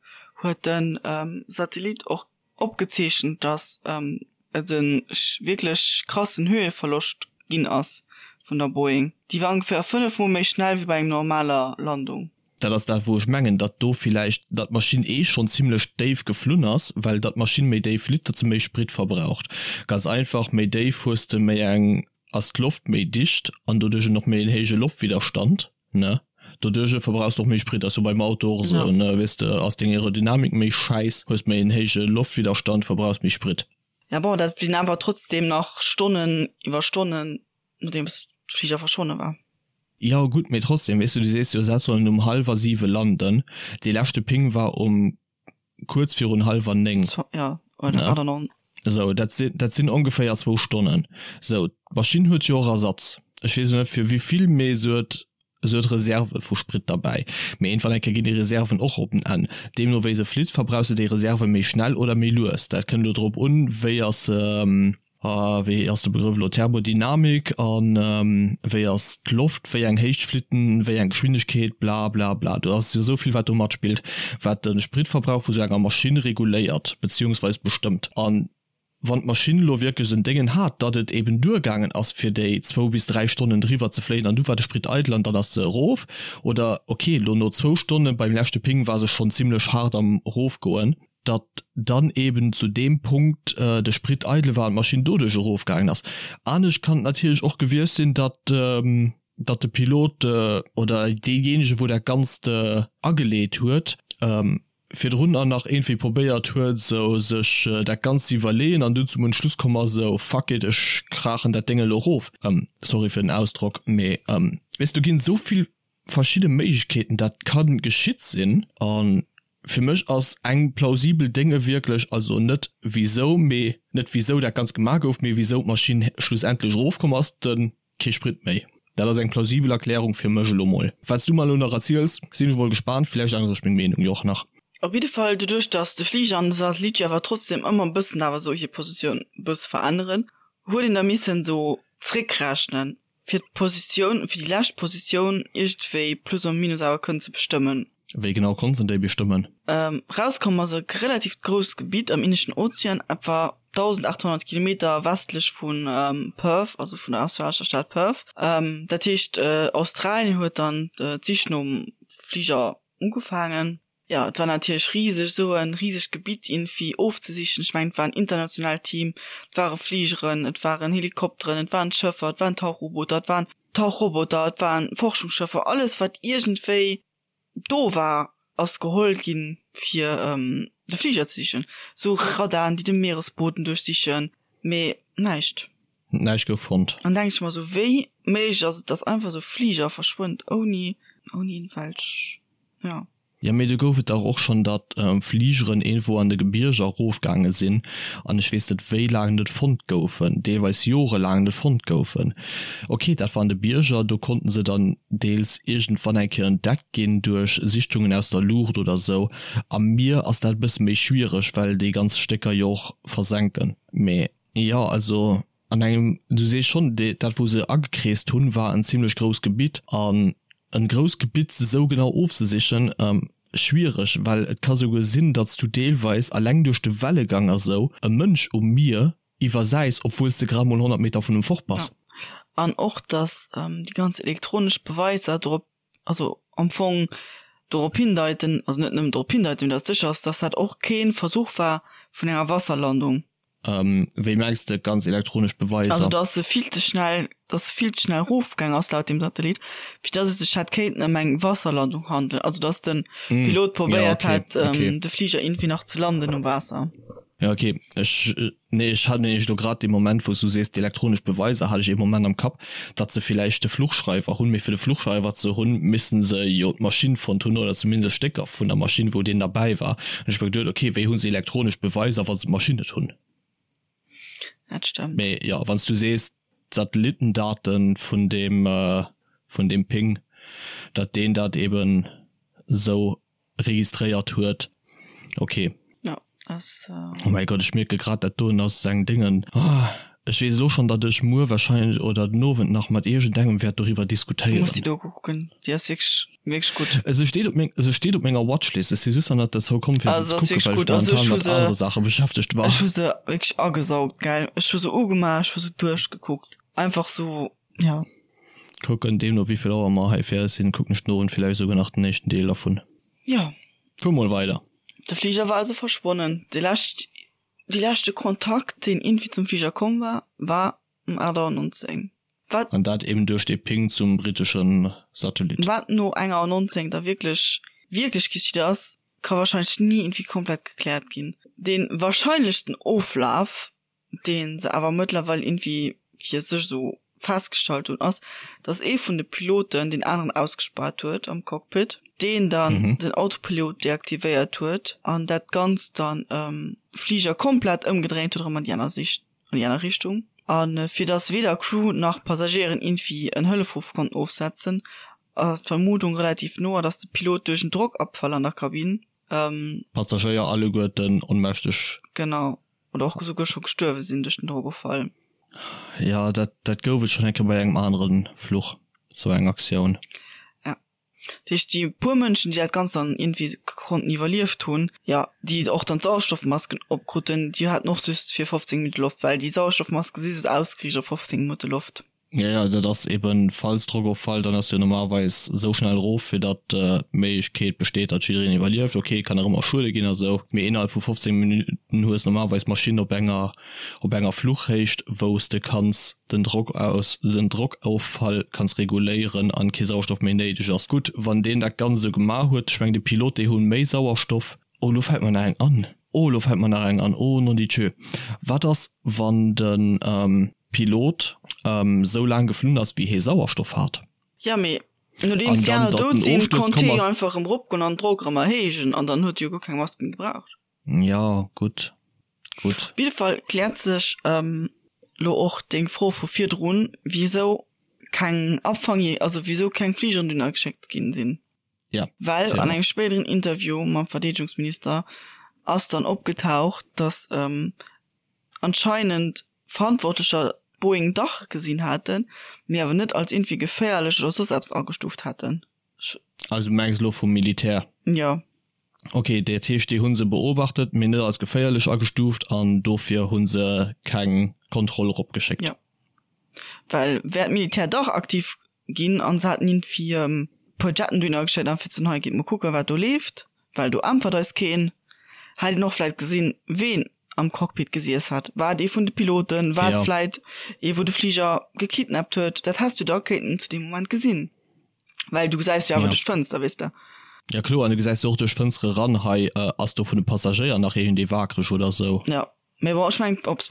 huet de Satellit och opgezeechent, datt et e wierklech krassen Höheverloscht ginn ass vun der Boeing. Déi war ongeféier 5 mol méi schnell wéi bei eng normaler Landung. Dat ass dat, wou ech mengen, datt do villäicht, datt d'Maschinn eh schonn zimlech déif geflunn ass, well datt d'Maschinn méi déif flitt, datt se méi Sprit verbraucht. Ganz einfach, méi déif hues de méi eng, ass d'Loft méi dicht an doduerch och méi en héije Loftwidderstand, ne? Doduerch verbrauchs de och méi Sprit. Ass jo beim Auto och esou, ne? Weess de, ass deng Aerodynamik méi schäiss, hues méi en héije Loftwidderstand, verbrauchs méi Sprit. Ja bon, dat sinn awer trotzdem nach Stonnen iwwer Stonnen, nodeems d'Fliger verschwonne war. Jo gutt, mee trotzdem, weess du, du sees jo, se sollen um hallwer siwe landen, dee leschte Ping war um kuerz virun hallwer 9. Ja, oder 8 an. Esou, dat sinn, dat sinn ongeféier zwou Stonnen. Esou, d'Maschinn huet jo och Ersatz. Ech weess elo net fir wéivill, mee se huet, se huet Reserve vu Sprit derbäi. Mee iergendwann eng Kéier ginn déi Reserven och op den Enn. Deemno wéi se flitt, verbrauchs de déi Reserve méi schnell oder méi lues. Dat kënnt elo drop un, wéi ass se, Wéi ass de Begrëff elo, Thermodynamik an wéi ass d'Loft, wéi eng Héicht flitt en, wéi eng Geschwindegkeet, bla bla bla. Do ass jo esou vill wat do matspillt, wat de Spritverbrauch vu sou enger Maschinn reguléiert beziehungsweis bestëmmt. An wann d'Maschinn elo wierklech en Déngen hat, datt et eben duergaangen ass fir déi zwou bis 3 Stonnen driwwer ze fléien an du war de Sprit eidel an dann ass se erof, oder ok, elo no zwou Stonne beim leschte Ping war se schonn zimlech haart am erofgoen. Datt dann eben zu deem Punkt de Sprit eidel war an d'Maschinn doduerch erofgaangen ass. Anescht kann et natierlech och gewiescht sinn, datt datt de Pilot oder deejéinege wou dat Ganzt ageleet huet, virdrun nach iergendwéi probéiert huet esou sech dat Ganzt ze iwwerleeën an dunn zum Entschluss komm ass, esou fuck it, ech kraachen dat Déng elo erof. Sorry fir den Ausdrock, mee weess do ginn esou vill verschidde Méiglechkeeten dat ka geschitt sinn a fir mech ass eng plausibel Dénge wierklech, also net wisou, mee net wisou dat Ganzt gemaach gouf, mee wisou d'Maschinn schlussendlech erofkomm ass, de kee Sprit méi. Dat ass eng plausibel Erklärung fir mech elo mol. Wat s du mer elo nach erziels, sinn ech mol gespaant, villäicht ännere ech meng Meenung jo och nach. Op jidde Fall, doduerch datt de Fliger an de Satellit jo awer trotzdem ëmmer e bëssen awer esou hir Positioun e bësse veränneren, huet een da missen esou zréckrechnen, fir d'Positioun, fir déi lescht Positioun iergendwéi plus ou minus awer kënnen ze bestëmmen. Wéi genau konnt en déi bestëmmen? Rauskomm ass e relatiivt grousst Gebitt am Indeschen Ozean, etwa 1.800 Kilometer westlech vu Perth, also vun der australescher Stad Perth. Dat heescht, Australien huet dann d'Sich nom Fliger ugefaangen. Jo, et war natierlech riseg, esou e risegt Gebitt iergendwéi ofzesichen. Ech mengen, et war en internationaalt Team, et ware Fligeren, et waren Helikopteren, et waren Schëffer, et waren Tauchubooter, et waren Tauchroboter, et waren Forschungsschëffer, alles wat iergendwéi do war, ass geholl ginn, fir de Fliger ze sichen. Esou Radaren, déi de Mieresboden duerchsichen, mee näischt. Näischt gouf fonnt. Dann denke ech mer esou, wéi méiglech ass et, dass einfach esou e Fliger verschwënnt ouni, ouni iergendwelch. Ja. Jo, mee do gouf et dach och schonn, datt Fligeren iergendwou an de Gebierger erofgaange sinn an ech weess net wéi laang net fonnt goufen, deelweis jorelaang net fonnt goufen. Ok, dat war an de Bierger, do konnten se dann deels iergendwann eng Kéier entdeckt ginn duerch Sichtungen aus der Luucht oder sou. Am Mier ass dat e bësse méi schwiereg, well déi ganz Stécker jo och versenken. Mee jo, also An engem, du sees schonn, dat wou se agekreest hunn, war en zimlech grousst Gebitt. An en grousst Gebitt esou genau ofzesichen, schwiereg, well et ka souguer sinn, datt s du deelweis alleng duerch de Wellegang a sou e Mënsch um Mier iwwersäis, obwuel s de grad mol 100 Meter vun em fort bass. Jo, an och datt déi ganz elektronesch Beweiser dorop, also am Fong dorop hindeiten, also net nëmmen dorop hindeiten, mee datt sécher ass, datt dat och kee Versuch war vun enger Wasserlandung. Wéi mengs de ganz elektronesch Beweiser? Also dass se vill ze schnell, dass se vill ze schnell erofgaang ass laut dem Satellit, fir dass et sech hätt kéinten ëm eng Wasserlandung handelen. Also dass de Pilot probéiert hätt, de Fliger iergendwéi nach ze landen um Waasser. Ja okay, ech, nee ech hat nämlech elo grad dee Moment wou s du sees d'elektronesch Beweiser, hat ech ee Moment am Kapp, datt se villäicht de Fluchschreiwer hunn, mee fir de Fluchschreiwer ze hunn, missten se jo d'Maschinn fonnt hunn oder zumindest Stécker vun der Maschinn, wou deen derbäi war. An ech hu mer geduet, okay, wéi hu se elektronesch Beweiser, wa se d'Maschinn net hunn? Dat stëmmt. Mee jo, wann s du sees, d'Satellittendaten vun deem, vun deem Ping, datt deen dat eben esou registréiert huet. Ok. Ja, ass. Oh mäi Gott, ech mierke grad, dat doen ass eng Déngen. Ech weess elo schonn, datt ech muer wahrscheinlech oder den Owend nach mat iergendengem wäert doriwwer diskutéieren. Du muss déi Doku kucken, déi ass wierklech, wierklech gutt. Se steet op meng, se steet op menger Watchlist. Ech si just nach net dozou komm, fir se ze kucken, well ech momentan mat anere Saache beschäftegt war. Ech hu se wierklech agesaugt, gell. Ech hu se ugemaach, ech hu se duerchgekuckt. Einfach sou, ja. Kucken, deemno wéivill Auer mer hei fäerdeg sinn, kucken ech den Owend villäicht esouguer nach den éischten Deel dervun. Jo. Fuer mol weider. De Fliger war also verschwonnen. De lescht, dee leschte Kontakt, deen iergendwéi zum Fliger komm war, war um 8 Auer 19. Wat. An dat eben duerch dee Ping zum britesche Satellit. Wat no enger Auer 19 da wierklech, wierklech geschitt ass, ka wahrscheinlech ni iergendwéi komplett gekläert ginn. Dee wahrscheinlechsten Oflaf dee se awer mëttlerweil iergendwéi fir sech esou festgestallt hunn, ass, datt ee vun de Piloten deen aneren ausgespaart huet am Cockpit, deen dann den Autopilot deaktivéiert huet an dat Ganzt dann Fliger komplett ëmgedréint huet erëm an déi aner Sicht, an déi aner Richtung. A fir datt weder Crew nach Passagéieren iergendwéi en Hëllefruff konnten ofsetzen, ass d'Vermutung relativ no, datt de Pilot duerch en Drockabfall an der Kabinn, D'Passagéier alleguerten onmächteg. Genau. Oder och esouguer scho gestuerwe sinn duerch den Drogoffall. Jo, dat, dat gouf et schonn eng Kéier bei engem anere Fluch, esou eng Aktioun. Ja. Dat heescht, déi puer Mënschen, déi dat Ganzt dann iergendwéi konnten iwwerlieft hunn, jo, déi och dann d'Sauerstoffmasken opkruten, déi haten och just fir 15 Minutte Loft, well déi Sauerstoffmaske si just ausgeriicht op 15 Minutte Loft. Ja, ja, dat ass eben, falls Drockoffall, dann ass jo normalerweis esou schnell erof, fir datt d'Méiglechkeet besteet, datt jiddereen iwwerlieft. Ok, kann nach ëmmer Schuede ginn a sou, mee innerhalb vu 15 Minutten hues normalerweis d'Maschinn op enger op enger Fluchhéicht, wou s de kanns den Drock aus den Drockoffall kanns reguléieren an kee Sauerstoff méi néideg ass. Gutt, wann deen dat Ganzt esou gemaach huet, ech mengen de Pilot, déi hu méi Sauerstoff. Oh, lo fält mer nach eng an. Oh, lo fält mer nach eng an. Oh, nondidjö. Wat ass, wann de Pilot esou laang geflunn ass, wéi hee Sauerstoff hat? Jo, mee nodeems déi aner dout sinn, konnt hee jo einfach erëm eropgoen an den Drock erëm erhéijen an dann huet e jo guer keng Mask méi gebraucht. Jo, gutt, gutt. Op jidde Fall kläert sech lo och deng Fro vu virdrun, wisou keng Abfang, also wisou keng Fligeren dunner geschéckt ginn sinn. Ja, Well an engem spéideren Interview mam Verdeedegungsminister ass dann opgetaucht, datt anscheinend Verantwortlecher d'Boeing dach gesinn haten, mee awer net als iergendwéi geféierlech oder soss eppes agestuuft hätten. Also du mengs elo vum Militär? Jo. Ok, dat heescht déi hu se beobachtet, mee net als geféierlech agestuuft an dofir hu se keng Kontroll eropgeschéckt. Jo. Well wär d'Militär dach aktiv ginn an se haten iergendwéi e puer Jetten dohinner geschéckt an fir ze soen, hei gitt mol kucken, wat do leeft, well do äntwert eis keen. Hätt een och vläit gesinn, ween am Cockpit gesiess hat. War et ee vun de Piloten? War et vläit ee, wou de Fliger gekidnappt huet? Dat häss du da kéinten zu deem Moment gesinn, well du gesäis jo awer duerch d'Fënster, weess de. Ja kloer, an du gesäis jo och duerch d'Fënstere ran, hei ass do vun de Passagéier nach iergendee wakereg oder sou. Jo, mee bon, ech mengen, ob s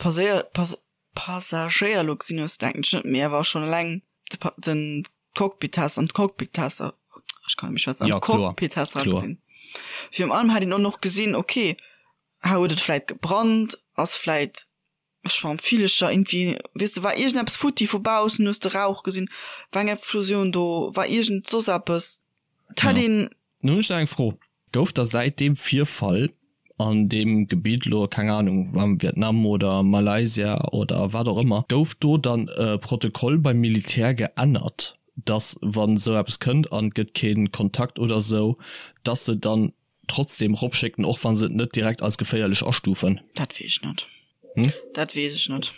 Passagéier lo gesinn hues, denken ech net, mee awer schonn eleng de Pa den Cockpit-Test an d'Cockpit-Tester, ech kann net méi schwätzen, an Ja, kloer, d'Cockpit-Tester kloer. gesinn. Virun allem hätt een och nach gesinn, okay, hei huet et vläit gebrannt, ass vläit Schwammvillecher irgendwie, weess de, war iergendeppes futti vu baussen, hues de Rauch gesinn, war eng Explosioun do, war iergend soss eppes, et hätt Ja. een. Nun hunn ech nach eng Fro. Gouf da säit deem Virfall an deem Gebitt, elo keng Ahnung, am Vietnam oder Malaysia oder wat och ëmmer, gouf do dann e Protokoll beim Militär geännert, dass wann esou eppes kënnt an et gëtt kee Kontakt oder esou, dass se dann trotzdem eropschécken, och wa se et net direkt als geféierlech astufen? Dat weess ech net. Dat weess ech net.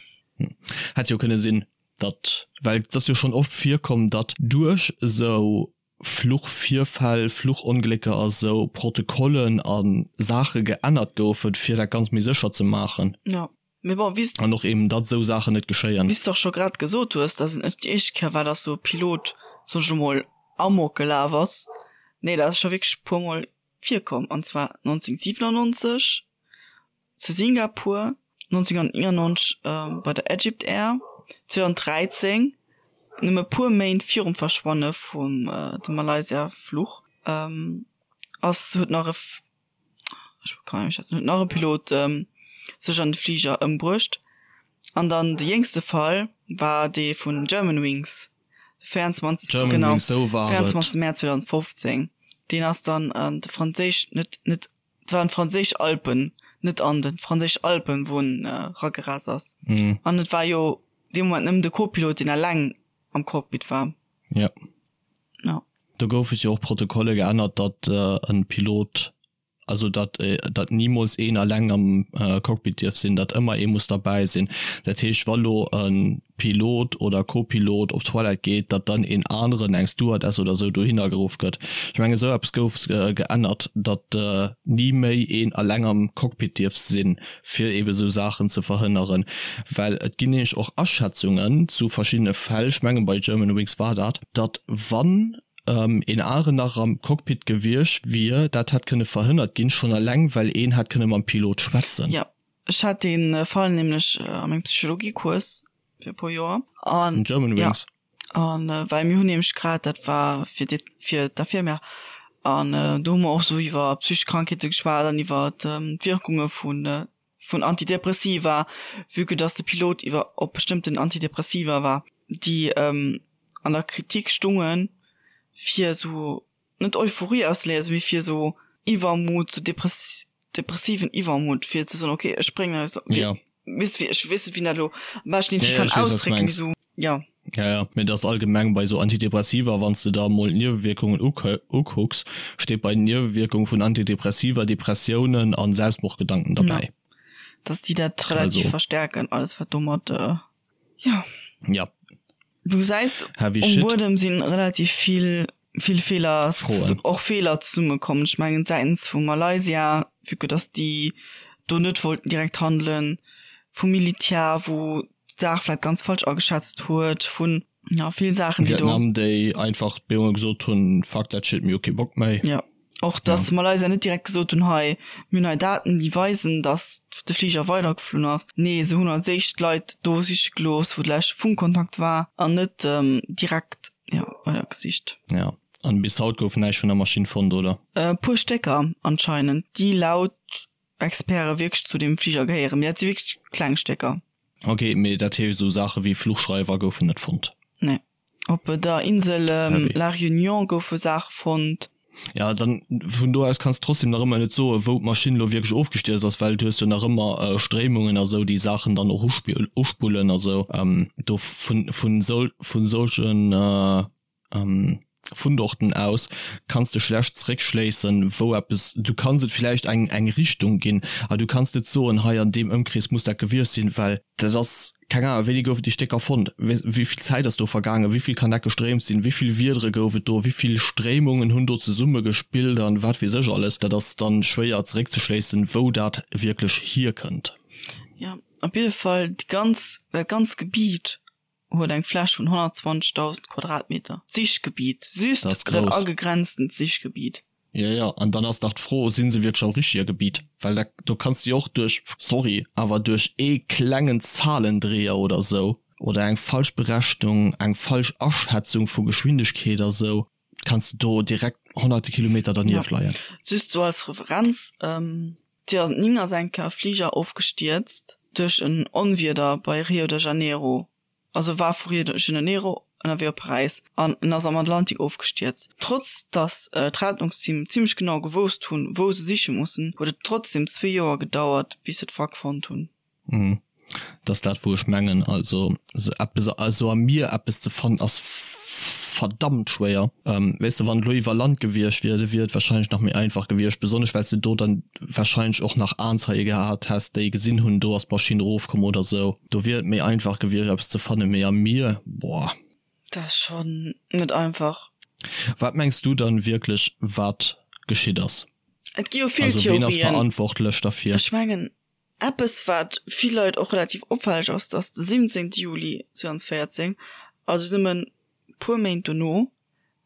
Hätt jo kënne sinn, datt, well et ass jo schonn oft virkomm, datt duerch esou Fluchvirfäll, Fluchonglécker a sou Protokollen a Saache geännert goufen, fir dat Ganzt méi sécher ze maachen. Jo, mee bon, wéi s. An och eben, datt esou Saachen net geschéien. Wéi s de och scho grad gesot hues, datt et net déi éischt Kéier war, datt sou e Pilot, soen ech emol, amok gelaf ass. Nee, dat ass scho wierklech e puermol virkomm, an zwar 1997, zu Singapur, 1999 bei der Egypt Air, 2013, nëmme puer Méint virum Verschwanne vum dem Malaysia-Fluch, ass huet nach e ech kann net méi schwätzen, huet nach e Pilot sech an de Fliger ëmbruecht. An dann de jéngste Fall war dee vun Germanwings, de 24 genau, 24 Mäerz 2015. Deen ass dann an de franséisch net net Et waren d'franséisch Alpen, net Anden, d'franséisch Alpen, wou en eragerast ass. An et war jo dee Moment nëmmen de Co-Pilot, deen eleng am Cockpit war. Jo. Ja. Do gouf et jo och Protokolle geännert, datt e Pilot, also datt datt nimools een eleng am Cockpit dierf sinn, datt ëmmer ee muss derbäi sinn. Dat heescht, wa lo e Pilot oder Co-Pilot op d'Toilette geet, datt dann een aneren, eng Stewardess oder esou, dohinner geruff gëtt. Ech mengen, esou eppes gouf geännert, datt ni méi een eleng am Cockpit dierf sinn, fir eebe esou Saachen ze verhënneren. Well et ginn nämlech och Aschätzungen zu verschiddene Fäll, ech mengen bei Germanwings war dat, datt wann een aneren nach am Cockpit gewiescht wier, dat hätt kënne verhënnert ginn, schonn eleng well een hätt kënne mam Pilot schwätzen. Jo, Ech hat dee Fall nämlech a mengem Psychologiecours fir e puer Joer. An Germanwings. Ja, an well mir hunn nämlech grad, dat war fir déi, fir d'Infirmière, an do hu mer och sou iwwer psychesch Krankheete geschwat an iwwer d'Wierkunge vun, vun Antidepressiva, vue que dass de Pilot iwwer op bestëmmten Antidepressiva war, déi an der Kritik stungen, fir sou net Euphorie ausléisen, mee fir esou Iwwermut, sou depressiven Iwwermut, fir ze soen, okay, ech bréngen eis, ja. weess de, ech weess net, wéi een dat elo am beschten irgendwie kann ausdrécken, mee sou, ja. Ja, ja, mee dat ass allgemeng bei esou Antidepressiva, wann s de der emol d'Niewewierkungen ukucks, steet bei den Niewewierkungen vun Antidepressiva Depressiounen a Selbstmordgedanken derbäi. Ja, dass déi dat relativ verstärken, alles wat domat, ja. Ja. Du gesäis, Heavy um shit. Buedem si relativ vill, vill Feeler, Froen. och Feeler zesummekomm. Ech mengen säitens vu Malaysia, vue que dass déi do net wollten direkt handelen, vum Militär, wou d'Saach vläicht ganz falsch ageschätzt huet, vun, ja, vill Saachen, déi do. Vietnam, déi einfach d'Bedéngunge gesot hunn, Fuck that shit, mir hu kee Bock méi. Ja. Och dass Malaysia net direkt gesot hunn, hei, mir hunn hei Daten, déi weisen, dass de Fliger weidergeflunn ass. Nee, se hunn als éischt d'Leit do siche gelooss, wou de leschte Funkkontakt war, an net direkt, jo, weidergesicht. Ja, an bis haut gouf näischt vun der Maschinn fonnt, oder? E puer Stécker anscheinend, déi laut Experte wierklech zu deem Fliger gehéieren, mee dat si wierklech kleng Stécker. Ok, mee dat heescht, esou Saache wéi Fluchschreiwer goufen net fonnt? Nee. Op der Insel La Réunion goufe Saache fonnt. Ja, dann vun do aus kanns de trotzdem nach ëmmer net soen, wou d'Maschinn elo wierklech ofgestierzt ass, well du hues jo nach ëmmer Stréimungen a sou, déi Saachen dann och uspullen a sou. Do vun vun vun solchen Fundorten aus kanns de schlecht zeréckschléissen, wou eppes, du kanns et villäicht eng eng Richtung ginn, awer du kanns net soen, hei an deem Ëmkrees muss dat gewiescht sinn, well dat ass, keng Ahnung, wéini goufen déi Stécker fonnt, wéi vill Zäit ass do vergaangen, wéi vill kann dat gestréimt sinn, wéi vill Wiedere gouf et do, wéi vill Stréimungen hunn do zesumme gespillt an wat weess ech alles. Dat ass dann schwéier zeréckzeschléissen, wou dat wierklech hierkënnt. Jo, op jidde Fall déi ganz, dat ganzt Gebiet huet eng Fläch vun 120.000 Quadratmeter. D'Sichgebiet, just Dat ass dat grouss. agegrenztent Sichgebiet. Jo, jo, an dann ass nach d'Fro, si se wierklech am richtige Gebiet? Well da, do kanns de jo och duerch, sorry, awer duerch ee klengen Zahlendreher oder esou oder eng falsch Berechnung, eng falsch Aschätzung vu Geschwindegkeet a sou, kanns de do direkt honnerte Kilometer dernieft Ja, leien. just sou als Referenz, 2009 ass eng Kéier e Fliger ofgestierzt duerch en Onwieder bei Rio de Janeiro, also war vu Rio de Janeiro ënnerwee op Paräis an en ass am Atlantik ofgestierzt. Trotz datt d'Rettungsteam zimmlech genau gewousst hunn, wou se siche mussen, huet et trotzdem zwee Joer gedauert, bis se d'Wrack fonnt hunn. Mhm. Dat ass dat wou ech mengen, also se eppes also am Mier eppes ze fannen ass verdammt schwéier. Weess de wann et elo iwwer Land gewiescht wier, da wier et wahrscheinlech nach méi einfach gewiescht, besonnesch well s de do dann wahrscheinlech och nach Aenzeie gehat häss déi gesinn hunn, do ass d'Maschinn erofkomm oder sou. Do wier et méi einfach gewiescht eppes ze fannen, mee am Mier, boah. Dat ass schonn net einfach. Wat mengs du dann wierklech wat geschitt ass? Et gi jo vill Also ween ass Theorien. verantwortlech derfir? Ech mengen Eppes wat vill Leit och relativ opfälleg ass, dass de 17 Juli 2014, also nëmmen puer Méint dono,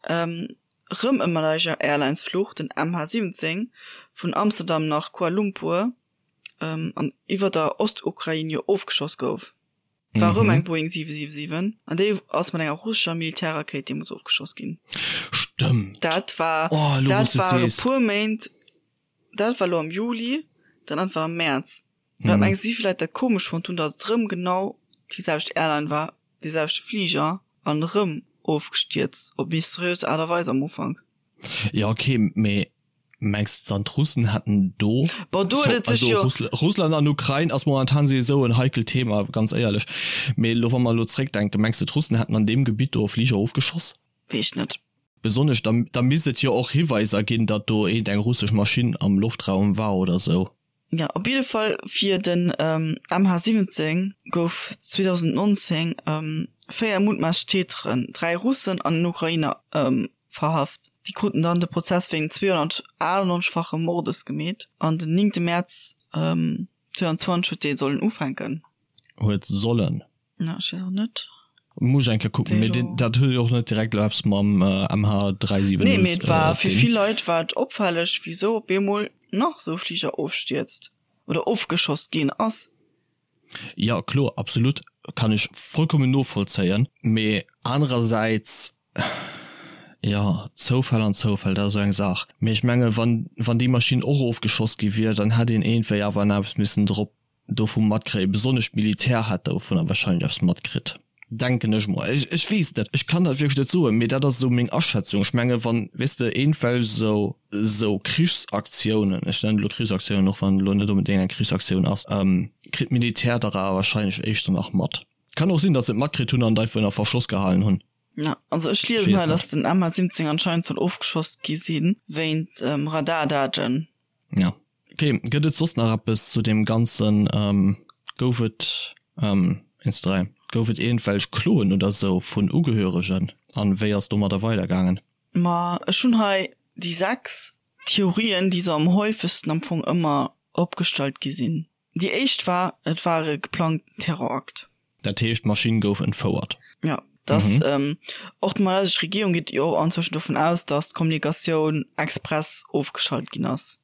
rëm e Malaysia Airlines Fluch, den MH17, vun Amsterdam nach Kuala Lumpur an iwwer der Ostukrain jo ofgeschoss gouf. War rëm eng Boeing 777 an déi ass mat enger russescher Militärrakéit deemools ofgeschoss ginn. Stëmmt! Dat war, dat war e puer Méint Dat war elo am Juli, dat anert war am Mäerz. Wat mengs du, wéi vill Leit dat komesch fonnt hunn, datt et erëm genau déi selwecht Airline war, dee selwechte Fliger an erëm ofgestierzt op mysteriös Aart a Weis am Ufank? Jo ok, mee mengs de dann d'Russen hätten do. Bon, do huet et sech jo. Also Russland an Ukrain ass momentan souwisou en heikelt Thema, ganz éierlech. Mee elo wa mer elo zréckdenken, mengs de d'Russen hätten an deem Gebitt do Fliger ofgeschoss? Weess ech net. Besonnesch da, da misst et jo och Hiweiser ginn, datt do eent eng russesch Maschinn am Loftraum war oder sou. Jo, op jidde Fall fir den MH17 gouf 2019 4 mutmaasslech Täteren, 3 Russen an en Ukrainer, verhaft. Déi kruten dann de Prozess wéinst 298-fachem Mordes gemeet an den 9 Mäerz 2020 huet dee sollen ufänken. Huet sollen. Na, ech weess och net. Muss ech eng Kéier kucken, mee deen, dat huet jo och net direkt elo eppes mam MH370 Nee, mee et war fir dinn. vill Leit war et opfälleg, wisou op eemol nach esou e Fliger ofstierzt oder ofgeschoss ginn ass. Jo, kloer, absolut, kann ech vollkommen novollzéien, mee anerersäits, jo, Zoufäll an Zoufäll, dat ass esou eng Saach. Mee ech menge wann, wann déi Maschinn och ofgeschoss gi wier, dann hätt een iergendwéi awer nach eppes missen drop dovu matkréien, besonnesch d'Militär hätt dovunner wahrscheinlech eppes matkritt, denken ech mol. Ech, ech weess et net, ech kann dat wierklech net soen, mee dat ass esou meng Aschätzung. Ech menge wann, weess de, iergendwelch esou, esou Krichsaktiounen, ech nennen et elo Krichsaktiounen, och wann et elo net onbedéngt eng Krichsaktioun ass, kritt d'Militär dach awer wahrscheinlech éischter nach mat. Kann och sinn, datt se et matkritt hunn an et einfach ënner Verschloss gehalen hunn. Ja, also ech liesen hei, datt den MH17 anscheinend soll ofgeschoss gi si wéint Radardaten. Ja. Ok, gëtt et soss nach eppes zu deem ganzen, gouf et, 1, 2, 3, Gouf et iergendwelch Kloen oder sou vun Ugehöregen an wéi ass domadder weidergaangen? Ma ech hunn hei déi 6 Theorien, déi sou am häufegsten am Fong ëmmer opgestallt gi sinn. Déi éischt war, et war e geplangten Terrorakt. Dat heescht, d'Maschinn gouf entfouert? Jo, dass och d'malaysesch Regierung geet jo och anzwëschen dovun aus, dass d'Kommunikatioun express ofgeschalt ginn ass.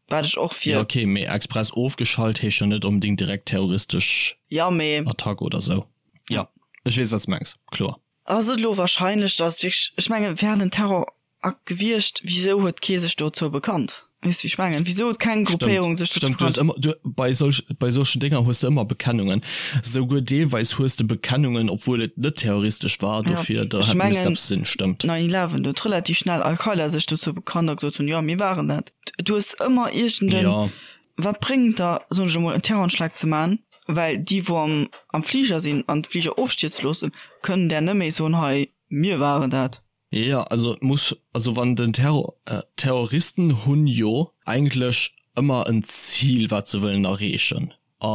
Wat ech och fir. Jo ok, mee express ofgeschalt heescht jo net onbedingt direkt terroristesch Ja, mee. Attack oder sou. Jo, ech weess wat s de mengs, kloer. Ass et elo wahrscheinlech, dass wierklech, ech mengen, wär et en Terrorakt gewiescht, wisou huet kee sech dozou bekannt? Weess de wéi ech mengen? Wisou huet keng Gruppéierung sech dozou bekannt? Stëmmt, du hues ëmmer, du, bei solch, bei solchen Dénger hues de ëmmer Bekennungen. Souguer deelweis hues de Bekennungen, obwuel et net terroristesch war, dofir da hätt misst eppes sinn, stëmmt. 9/11, do huet relativ schnell Al-Qaida sech dozou bekannt a gesot hunn, jo mir waren dat. Du hues ëmmer iergend en, wat bréngt der, soen ech emol, en Terroranschlag ze man, well déi wou am am Fliger sinn an de Fliger ofstierze loossen, kënnen där net méi soen, hei mir waren dat. Jo, also et muss, also wann den Terror, Terroristen hunn jo eigentlech ëmmer en Zil wat se wëllen erreechen, a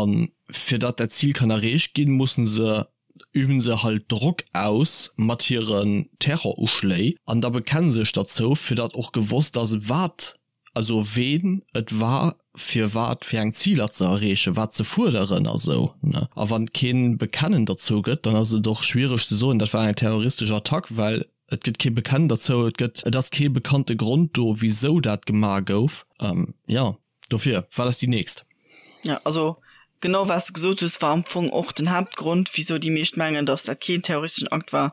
fir datt dat Zil kann erreecht ginn, mussen se, üben se halt Drock aus mat hiren Terroruschléi an da bekenne sech derzou, fir datt och gewosst ass wat also ween et war, fir wat fir eng Ziler ze erreechen, wat ze fuerderen a sou, ne. A wann et kee Bekennen derzou gëtt, dann ass et och schwiereg ze soen, dat war eng terroristesch Attack, well et gëtt kee Bekennen derzou, et gëtt, et ass kee bekannte Grond do, wisou dat gemaach gouf. Jo, dofir, wat ass déi nächst? Jo, also genau wat s de gesot hues, war am Fong och den Haaptgrond, wisou déi meescht mengen, datt dat keen terroristeschen Akt war,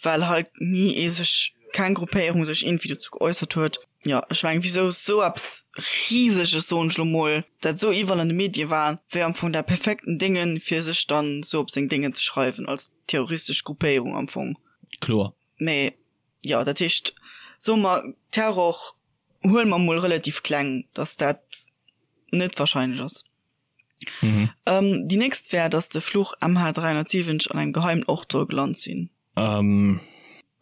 well halt ni ee sech, keng Gruppéierung sech iergendwéi dozou geäussert huet. Jo, ech mengen, wisou sou eppes Riseges, soen ech lo mol, dat sou iwwerall an de Medie war, wär am Fong dat perfekten Déngen, fir sech dann sou op seng Déngen ze schreiwen, als terroristesch Gruppéierung am Fong. Kloer. Mee jo, dat heescht, soe mer, Terror huele mer mol relativ kleng, datt dat net wahrscheinlech ass. Mhm. Ähm, déi nächst wär, datt de Fluch MH370 an engem geheimen Ort soll gelant sinn. Ähm,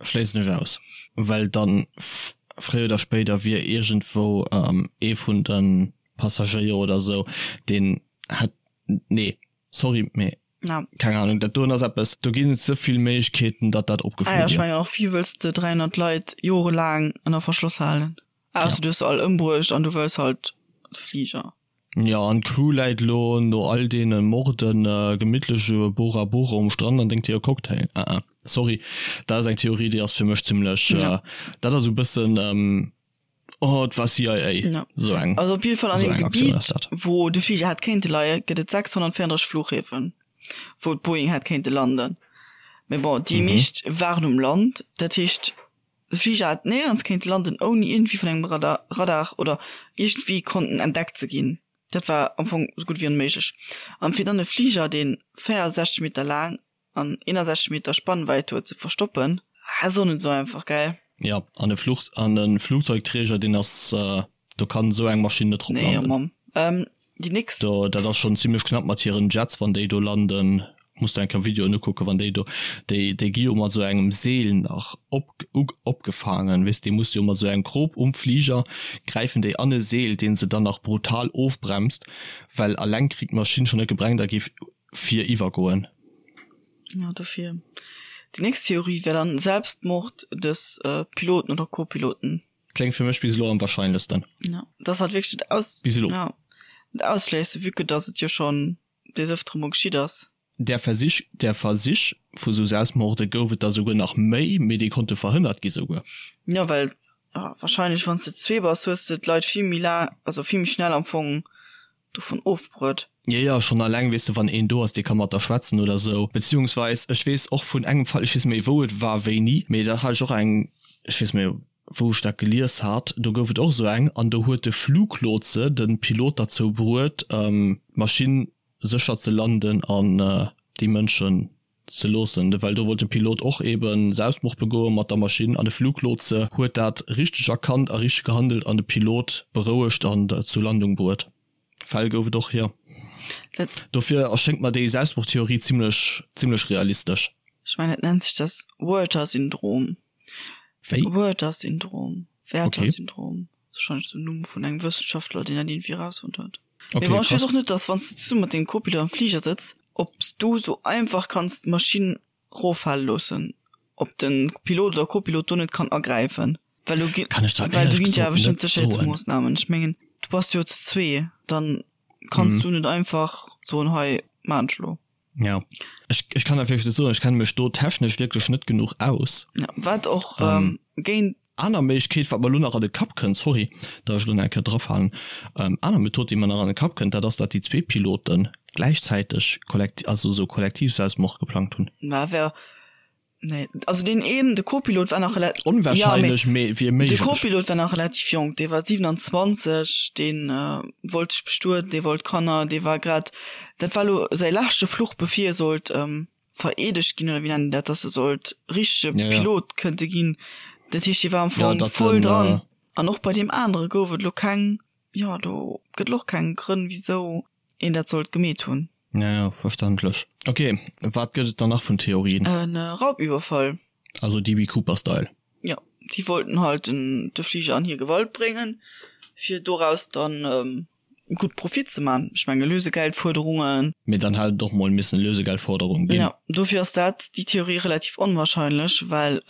schléissen ech aus, well dann fréier oder spéider wier iergendwou ähm, ee vun de Passagéier oder sou, deen hätt, nee, sorry, mee Ja. Keng Ahnung, dat doen ass eppes, do ginn et ze vill Méiglechkeeten, datt dat opgeflu wier. Ah ja, ech mengen och, wéi wëlls de 300 Leit jorelaang ënner Verschloss halen? Ausser du hues se all ëmbruecht an du wëlls halt de Fliger. Jo, an d'Crew läit elo no all deene Morden gemittlech u Bora Bora um Strand an drénkt hire Cocktail. Ah ah, sorry, dat ass eng Theorie, déi ass fir mech zimlech, dat ass esou e bëssen, Oh, et war CIA. Ja. So eng. Also op jidde Fall an deem Gebiet, wou de Fliger hätt kéinte leien, gëtt et 634 Fluchhäfen, wou d'Boeing hätt kéinte landen. Mee bon, déi meescht waren um Land. Dat heescht, de Fliger hätt néierens kéinte landen, ouni iergendwéi vun engem Radar, Radar oder iergendwéi konnten entdeckt ze ginn. Dat war am Fong esou gutt wéi onméiglech. An fir dann e Fliger, dee 64 Meter laang an 61 Meter Spannwäit huet ze verstoppen, ass och net esou einfach, gell? Jo, an e Fluch, an e Flugzeugträger, deen ass, do kann esou eng Maschinn net drop landen. Nee, oh Mamm. Ähm, déi nächst. Do, dat ass schonn zimlech knapp mat hiren Jets, wann déi do landen. Muss der eng Kéier Videoen ukucken, wann déi do, déi, déi gi jo mat esou engem Seel nach op, u, opgefaangen, weess, déi muss jo mat esou engem Krop um Fliger, gräifen déi an e Seel, dee se dann nach brutal ofbremst, well alleng kritt d'Maschinn schonn net gebrengt a géif fir iwwergoen. Ja, dofir. Déi nächst Theorie wär dann Selbstmord des Piloten oder Co-Piloten. Kléngt fir mech bis elo am wahrscheinlechsten. Ja, dat ass halt wierklech dat Aus. Bis elo. Ja, dat Ausschléisse, vue que dass et jo schonn des Ëftere mol geschitt ass. Där Versich, där Versich vu sou Selbstmorde gouf et der souguer nach méi, mee déi konnte verhënnert gi souguer. Jo, well wahrscheinlech wann s de zwee bass, hues de d'Leit vill méi laang, also vill méi schnell am Fong dovun ofbruet. Jo, jo, schonn alleng, weess de, wann een do ass, dee ka mat der schwätzen oder sou. Beziehungsweis, ech weess och vun engem Fall, ech weess net méi, wou et war, wéini, mee da hat ech och eng, ech weess net méi, wou ech dat gelies hat, do gouf et och esou eng, an do huet de Fluglotse de Pilot derzou bruet, d'Maschinn sécher ze landen an déi Mënschen ze loossen, well do wollt de Pilot och eben Selbstmord begoe mat der Maschinn an de Fluglotse huet dat richteg erkannt a richteg gehandelt an de Pilot berouegt an zur Landung bruet. Fäll gouf et och, jo. Dofir erschéngt mer déi Selbstmordtheorie zimlech zimlech realistesch. Ech mengen et nennt sech das Werther-Syndrom. Wéi? Werther-Syndrom. Werther-Syndrom. Wahrscheinlech den Numm vun engem Wëssenschaftler, deen dat iergendwéi erausfonnt huet. Okay, Mee bon, ech weess och net, dass wann s de zesumme mat dengem Co-Pilot am Fliger sëtz. Ob s du sou einfach kanns d'Maschinn roffale loossen, ob de Pilot oder Copilot do net kann agräifen, well do gi Kann ech der well do éierlech ginn et jo gesot awer bestimmt net soen. Sécherheetsmoossnamen. Ech mengen, du bass jo zu zwee, dann kanns du net einfach soen, hei maan ech elo. Ja, ech, ech kann der wierklech net soen, ech kenne mech do technesch wierklech net genuch aus. Ja, wat och ähm, géint. Aner Méiglechkeet, wat mer elo nach an de Kapp kënnt, sorry, datt ech elo nach eng Kéier drafalen, aner Method, déi mer nach an de Kapp kënnt, dat ass, datt déi zwee Pilote gläichzäiteg kollekti-, also esou Kollektivselbstmord geplangt hunn. Mä wär, nee, also deen een, de Co-Pilot war nach rela-, ja, mee Onwahrscheinlech, mee wier de méiglech. Co-Pilot war nach relativ jonk, dee war 27, dee wollt sech bestueden, dee wollt Kanner, dee war grad, dat war elo säi leschte Fluch, bevir e sollt vereedegt ginn oder wéi nennen dat, dass e sollt richtege Ja, ja. Pilot kënnte ginn. Dat heescht, dee war am Ja, Fong datt voll den, dran. äh, An och bei deem anere gouf et elo keng, jo, do gëtt elo och keng Grënn, wisou een dat sollt gemeet hunn. Ja, ja, verständlech. Ok, wat gëtt et dann nach vun Theorien? E Raubüberfall. Also DB Cooper-Style. Jo, déi wollten halt den, de Fliger an hir Gewalt bréngen, fir doraus dann gutt Profit ze man. Ech menge Lösegeldfuerderungen. Mee dann hätt et och mol missen Lösegeldforderung ginn. Jo, dofir ass dat, déi Theorie relativ onwahrscheinlech, well,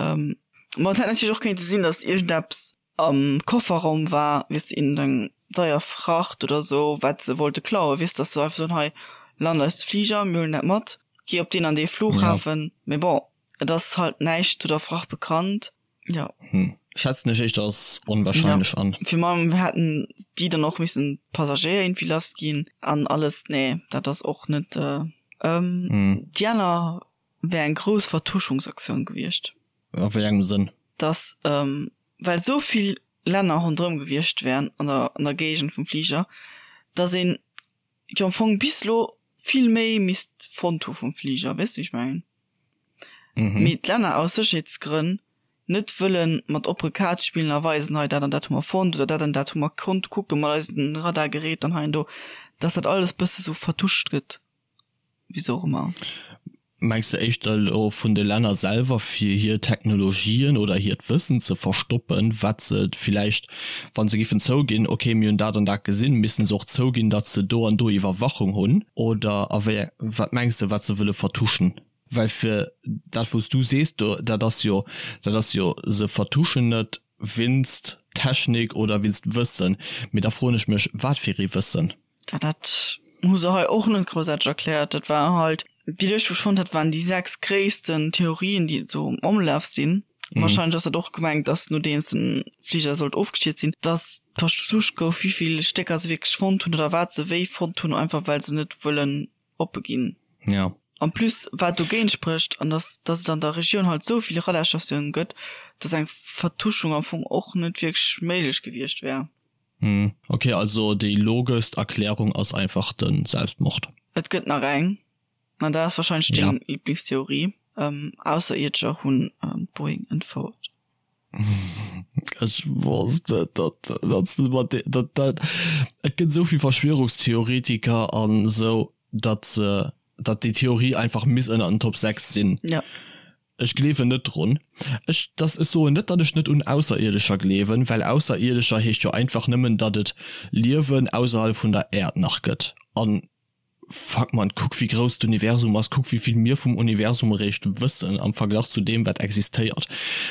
ma et hätt natierlech och kéinte sinn, datt iergendeppes am Kofferraum war, weess de, iergendeng deier Fracht oder sou, wat se wollte klauen, weess, datt se einfach soen, hei lant eis de Fliger, mir huelen dat mat, gi op deen an dee Flughafen. Mee bon, et ass halt näischt zu der Fracht bekannt. Ja. Hm. Schätzen ech éischter als onwahrscheinlech ja. an. Fir mam hätten déi dann och missen d'Passagéier irgendwie lass ginn an alles. Nee, dat ass och net. Äh, ähm, Hm. Déi aner wär eng grouss Vertuschungsaktioun gewiescht. A wéi engem Sënn? Dass, ähm, well esou vill Länner ronderëm gewiescht wären an der, an der Géigend vum Fliger, dass een jo am Fong bis lo vill méi misst fonnt hu vum Fliger, weess de wéi ech mengen? Mhm. Mee d'Länner aus Sécherheetsgrënn net wëlle mat oppere Kaart spillen a weisen, hei dat an dat hu mer fonnt oder dat an dat hu mer konnt kucke mat eisen Radargerät an hei an do, dass dat alles bësse sou vertuscht gëtt, wisou och ëmmer. Mengs de éischter elo vun de Länner selwer fir hir Technologien oder hiert Wëssen ze verstoppen, wat se villäicht, wa se giffen zouginn, ok mir hunn dat an dat gesinn, missten se och zouginn, datt se do an do Iwwerwachung hunn? Oder a wéi, wat mengs de wat se wëlle vertuschen? Well fir dat wou s du sees do, dat ass jo, dat ass jo, se vertuschen et winst Technik oder winst Wëssen, mee da froen ech mech, wat fir ee Wëssen? Ja, dat hu se hei och net groussaarteg erkläert. Dat war halt, déi Lëscht, wou ech fonnt hat, waren déi 6 gréissten Theorien, déi esou am Ëmlaf sinn. Mhm. Wahrscheinlech ass dat och gemengt, dass nodeems den Fliger sollt ofgestierzt sinn, dass versucht gouf, wéi vill Stécker se wierklech fonnt hunn oder wat se wéi fonnt hunn, einfach well se net wëllen oppe ginn. Ja. En plus, wat dogéint sprécht, an dass, dass et an der Regioun halt esou vill Radarstatiounen gëtt, dass eng Vertuschung am Fong och net wierklech méiglech gewiescht wär. Hm, ok, also déi logeschst Erklärung ass einfach de Selbstmord. Et gëtt nach eng, an dat ass wahrscheinlech Ja. deng Liblingstheorie, Ausserierdescher hunn d'Boeing entfouert. Ech wosst et, datt datt s de mat de datt dat et gëtt esou vill Verschwörungstheoretiker an esou, datt se datt déi Theorie einfach misst ënner den Top 6 sinn. Ja. Ech gleewen net drun. Ech dass ech soen net, datt ech net un Ausserierdescher gleewen, well Ausserierdescher heescht jo einfach nëmmen, datt et Liewen ausserhalb vun der Äerd nach gëtt. An fuck man, kuck wéi grouss d'Universum ass, kuck wéi vill mir vum Universum eréischt wëssen am Verglach zu deem wat existéiert.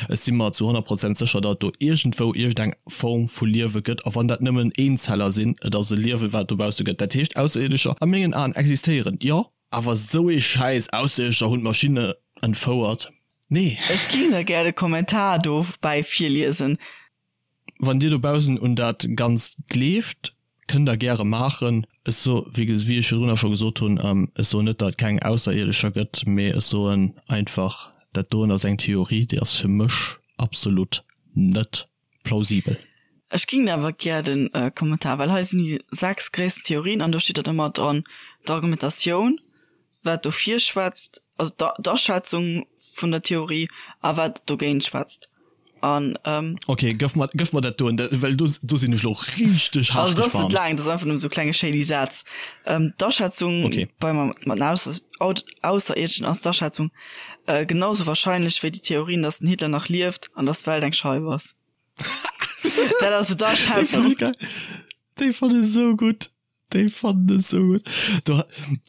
Ech si mer zu 100 Prozent sécher, datt et do iergendwou iergendeng Form vu Liewe gëtt, a wann dat nëmmen Eenzeller sinn, et ass e Liewen wat et dobausse gëtt. Dat heescht Ausserierdescher a mengen Aen existéieren, jo. Awer sou ee Schäiss, Ausserierdescher hunn d'Maschinne entfouert, nee. Ech ging der gär de Kommentar dobäi virliesen. Wann dir dobaussen un dat Ganzt gleeft, kënnt der gäre maachen. Ech so, wéi wéi ech virdrunner scho gesot hunn, ech soen net, datt et keng Ausserierdescher gëtt, mee ech soen einfach, dat doen ass eng Theorie, déi ass fir mech absolut net plausibel. Ech ging awer gär den Kommentar, well hei sinn déi 6 gréissten Theorien an do steet dann ëmmer dran d'Argumentatioun, wat dofir schwätzt, also d'Aschätzung vun der Theorie a wat dogéint schwätzt. An ähm, Ok, gëff mer, gëff mer dat doen, well do, do sinn ech lo richteg haart also dat ass net gespannt. laang, dat ass einfach nëmmen esou klenge shady Sätz. Ähm, d'Aschätzung Okay. bei mat den Ausser, Ausserierdeschen ass d'Aschätzung äh, genauso wahrscheinlech wéi déi Theorien, dass den Hitler nach lieft an dass d'Welt eng Scheif ass. Dat ass so Déi fand d'Aschätzung. ech geil. Déi fand ech esou gutt. Déi fannen ech sou gutt. Do,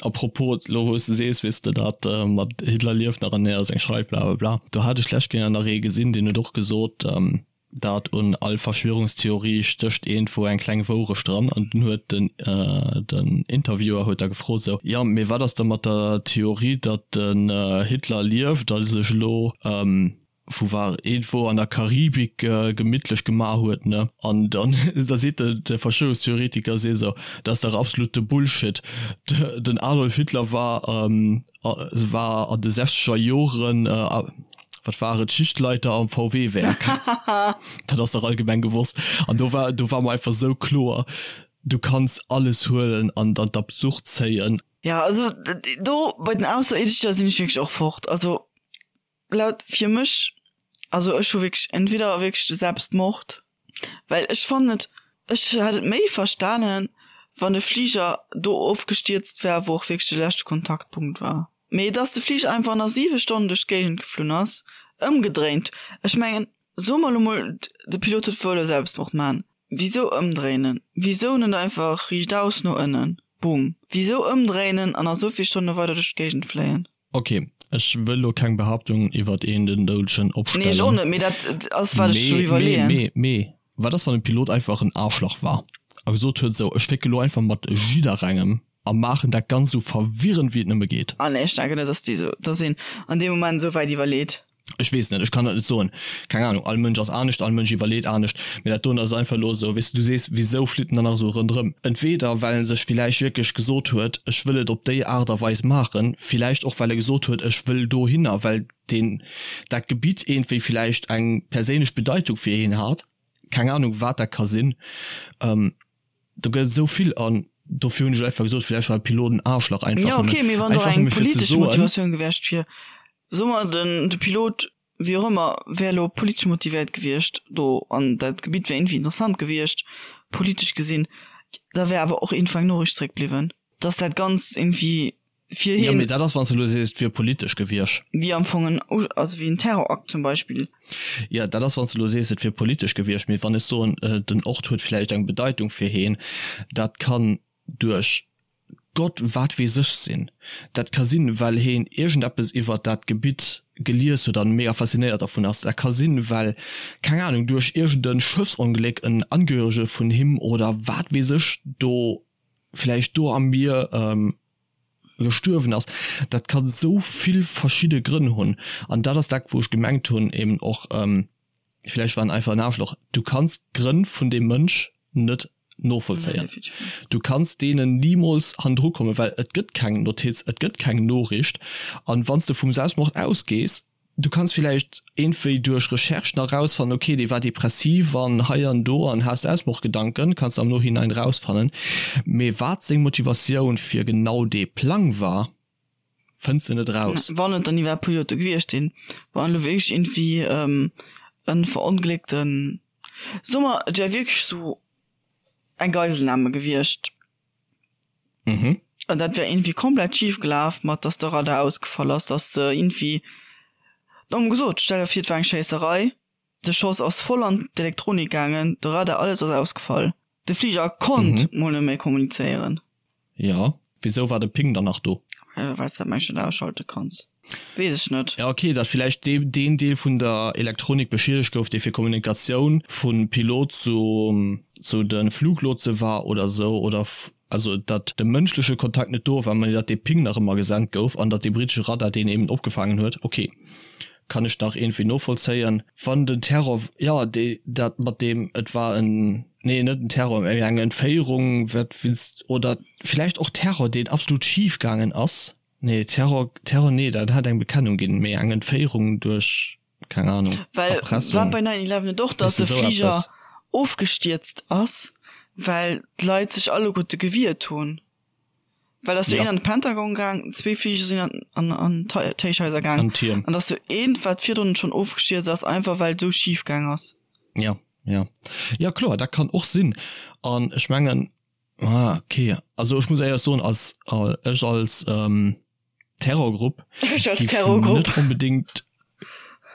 à propos, lo wou s de sees, weess de, dat mat Hitler lieft nach an hien ass eng Schreif, bla bla bla. Do hat ech d'lescht Kéier nach ee gesinn, deen huet och gesot, dat un all Verschwörungstheorie stécht iergendwou eng kleng Wourecht dran. An dunn huet den, den Interviewer huet da gefrot sou, jo, mee wat ass da mat der Theorie, datt den Hitler lieft a sech elo, wou war iergendwou an der Karibik gemittlech gemaach huet, ne? An dann da seet de de Verschwörungstheoretiker seet esou, dat ass dach absolute Bullshit, den Adolf Hitler war war an de sechzeger Joren wat war et Schichtleiter am VW Werk, dat ass dach allgemeng gewosst. An do war do war mer einfach esou kloer, du kanns alles huelen an an d'Absurd zéien. Ja also do bei den Ausserierdescher sinn ech wierklech och fort, also Laut fir mech, also ech hu wierklech entweder wierklech de Selbstmord, well ech fannen et, ech hätt et méi verstanen, wann de Fliger do ofgestierzt wär, wou och wierklech de leschte Kontaktpunkt war. Mee dass de Fliger einfach nach 7 Stonnen duerch d'Géigend geflunn ass, ëmgedréint, ech mengen, soe mer elo mol, de Pilot huet wëlle Selbstmord man, wisou ëmdréinen? Wisou net einfach riichtaus no ënnen, boom? Wisou ëmdréinen an nach esou vill Stonne weider duerch d'Géigend fléien? Ok, ech wëll lo keng Behaaptung iwwert een den Doudegen opstellen. Nee, ech och net, mee dat ass wat ech sou iwwerleeën. Mee, mee, mee, wat ass wann de Pilot einfach en Aarschlach war a gesot huet, sou ech fécke lo einfach mat jidderengem a maachen dat Ganzt sou verwirrend wéi et nëmme geet? Ah nee, ech denken net, dass déi sou, dass een an deem Moment sou wäit iwwerleet. Ech weess net, ech kann dat net soen. Keng Ahnung, all Mënsch ass anescht, all Mënsch iwwerleet anescht. Mee dat doen ass einfach elo esou, weess de, du sees, wisou flitt en dann nach esou ronderëm? Entweder well en sech villäicht wierklech gesot huet, ech wëll et op déi Aart a Weis maachen, villäicht och well e gesot huet, ech wëll dohinner, well deen, dat Gebitt iergendwéi villäicht eng perséinlech Bedeitung fir hien hat. Keng Ahnung, wat dat ka sinn. Do gëtt et esou vill an dofir hunn ech einfach gesot, villäicht war de Pilot en Aarschlach, einfach Jo, okay, mee wann do einfach eng nëmme fir ze politesch soen. Motivatioun gewiescht wier, soe mer den de Pilot, wéi och ëmmer, wär elo politesch motivéiert gewiescht do an dat Gebitt wär iergendwéi interessant gewiescht, politesch gesinn, da wär awer och iergendwou eng Noriicht zréckbliwwen, dass dat Ganzt iergendwéi fir Jo, hien. mee dat ass, wann s de elo sees, et wier politesch gewiescht. Wéi am Fong en, also wéi en Terrorakt zum Beispill. Jo, dat ass, wann s de elo sees, et wier politesch gewiescht. Mee wann ech soen, den Ort huet vläicht eng Bedeitung fir hien, dat kann duerch Gott wat weess ech sinn. Dat ka sinn, well heen iergendeppes iwwert dat Gebitt gelies huet an mega faszinéiert dervun ass. Dat ka sinn, well, keng Ahnung, duerch iergend e Schëffsongléck en Angehörege vun him oder wat weess ech do vläicht do am Mier gestuerwen ass. Dat ka sou vill verschidde Grënn hunn. An dat ass dat, wou ech gemengt hunn, eben och, vläicht war en einfach en Aarschloch. Du kanns d'Grënn vun deem Mënsch net novollzéien. Du kanns deenen nimools hannendru kommen, well et gëtt keng Notiz, et gëtt keng Noriicht. An wann s de vum Selbstmord ausgees, Du kanns villäicht iergendwéi duerch Recherche nach rausfannen, ok, dee war depressiv an hei an do an hat Selbstmordgedanken, kanns de am Nohinein rausfannen. Mee wat seng Motivatioun fir genau dee Plang war, fënns de net raus. Wann et dann iwwerhaapt Pilote gewiescht sinn, wann elo wierklech iergendwéi e verongléckten, soe mer, et wär wierklech sou eng Geiselnahme gewiescht, Mhm. An dat wär irgendwie komplett schief gelaf, mat dass de Radar ausgefall ass, dass se irgendwie, domm gesot, stell der vir et war eng Schéisserei, de Schoss ass voll an d'Elektronik gaangen, de Radar, alles ass ausgefall, de Fliger konnt mol net méi kommunizéieren. Jo, wisou war de Ping dann nach do? Well s dat mengen ech net ausschalte kanns. Weess ech net. Ja ok, datt villäicht deen Deel vun der Elektronik beschiedegt gouf, dee fir Kommunikatioun vu Pilot zu zu de Fluglotse war oder sou, oder also datt de mënschleche Kontakt net do war, mä datt dee Ping nach ëmmer gesent gouf an datt dee britesche Radar deen eben opgefaangen huet. Ok, kann ech nach iergendwéi novollzéien. Wann den Terror, jo dee dat mat deem et war en, nee net en Terror, mä eng Entféierung, wat willst, oder villäicht och Terror, deen absolut schif gaangen ass. Nee, Terror, Terror nee, dat hat eng Bekennung ginn, mee eng Entféierung duerch, keng Ahnung, Well Erpressung. war bei 9-11 net och, Weess dass de, de sou Fliger eppes. ofgestierzt ass, well d'Leit sech alleguerte gewiert hunn? Well ass jo Ja. een an de Pentagon gaang, zwee Fliger sinn an, an, an d'Héichhaiser gaang. An d'Tierm. An dass jo eent, wat virdrun schonn ofgestierzt ass, einfach well et esou schif gaang ass. Ja, ja. Ja, kloer, dat kann och sinn. An ech mengen, Ah, okay. Also ech muss éierlech soen, als ech als ähm, Terrorgrupp Ech als giff Terrorgrupp. net onbedingt.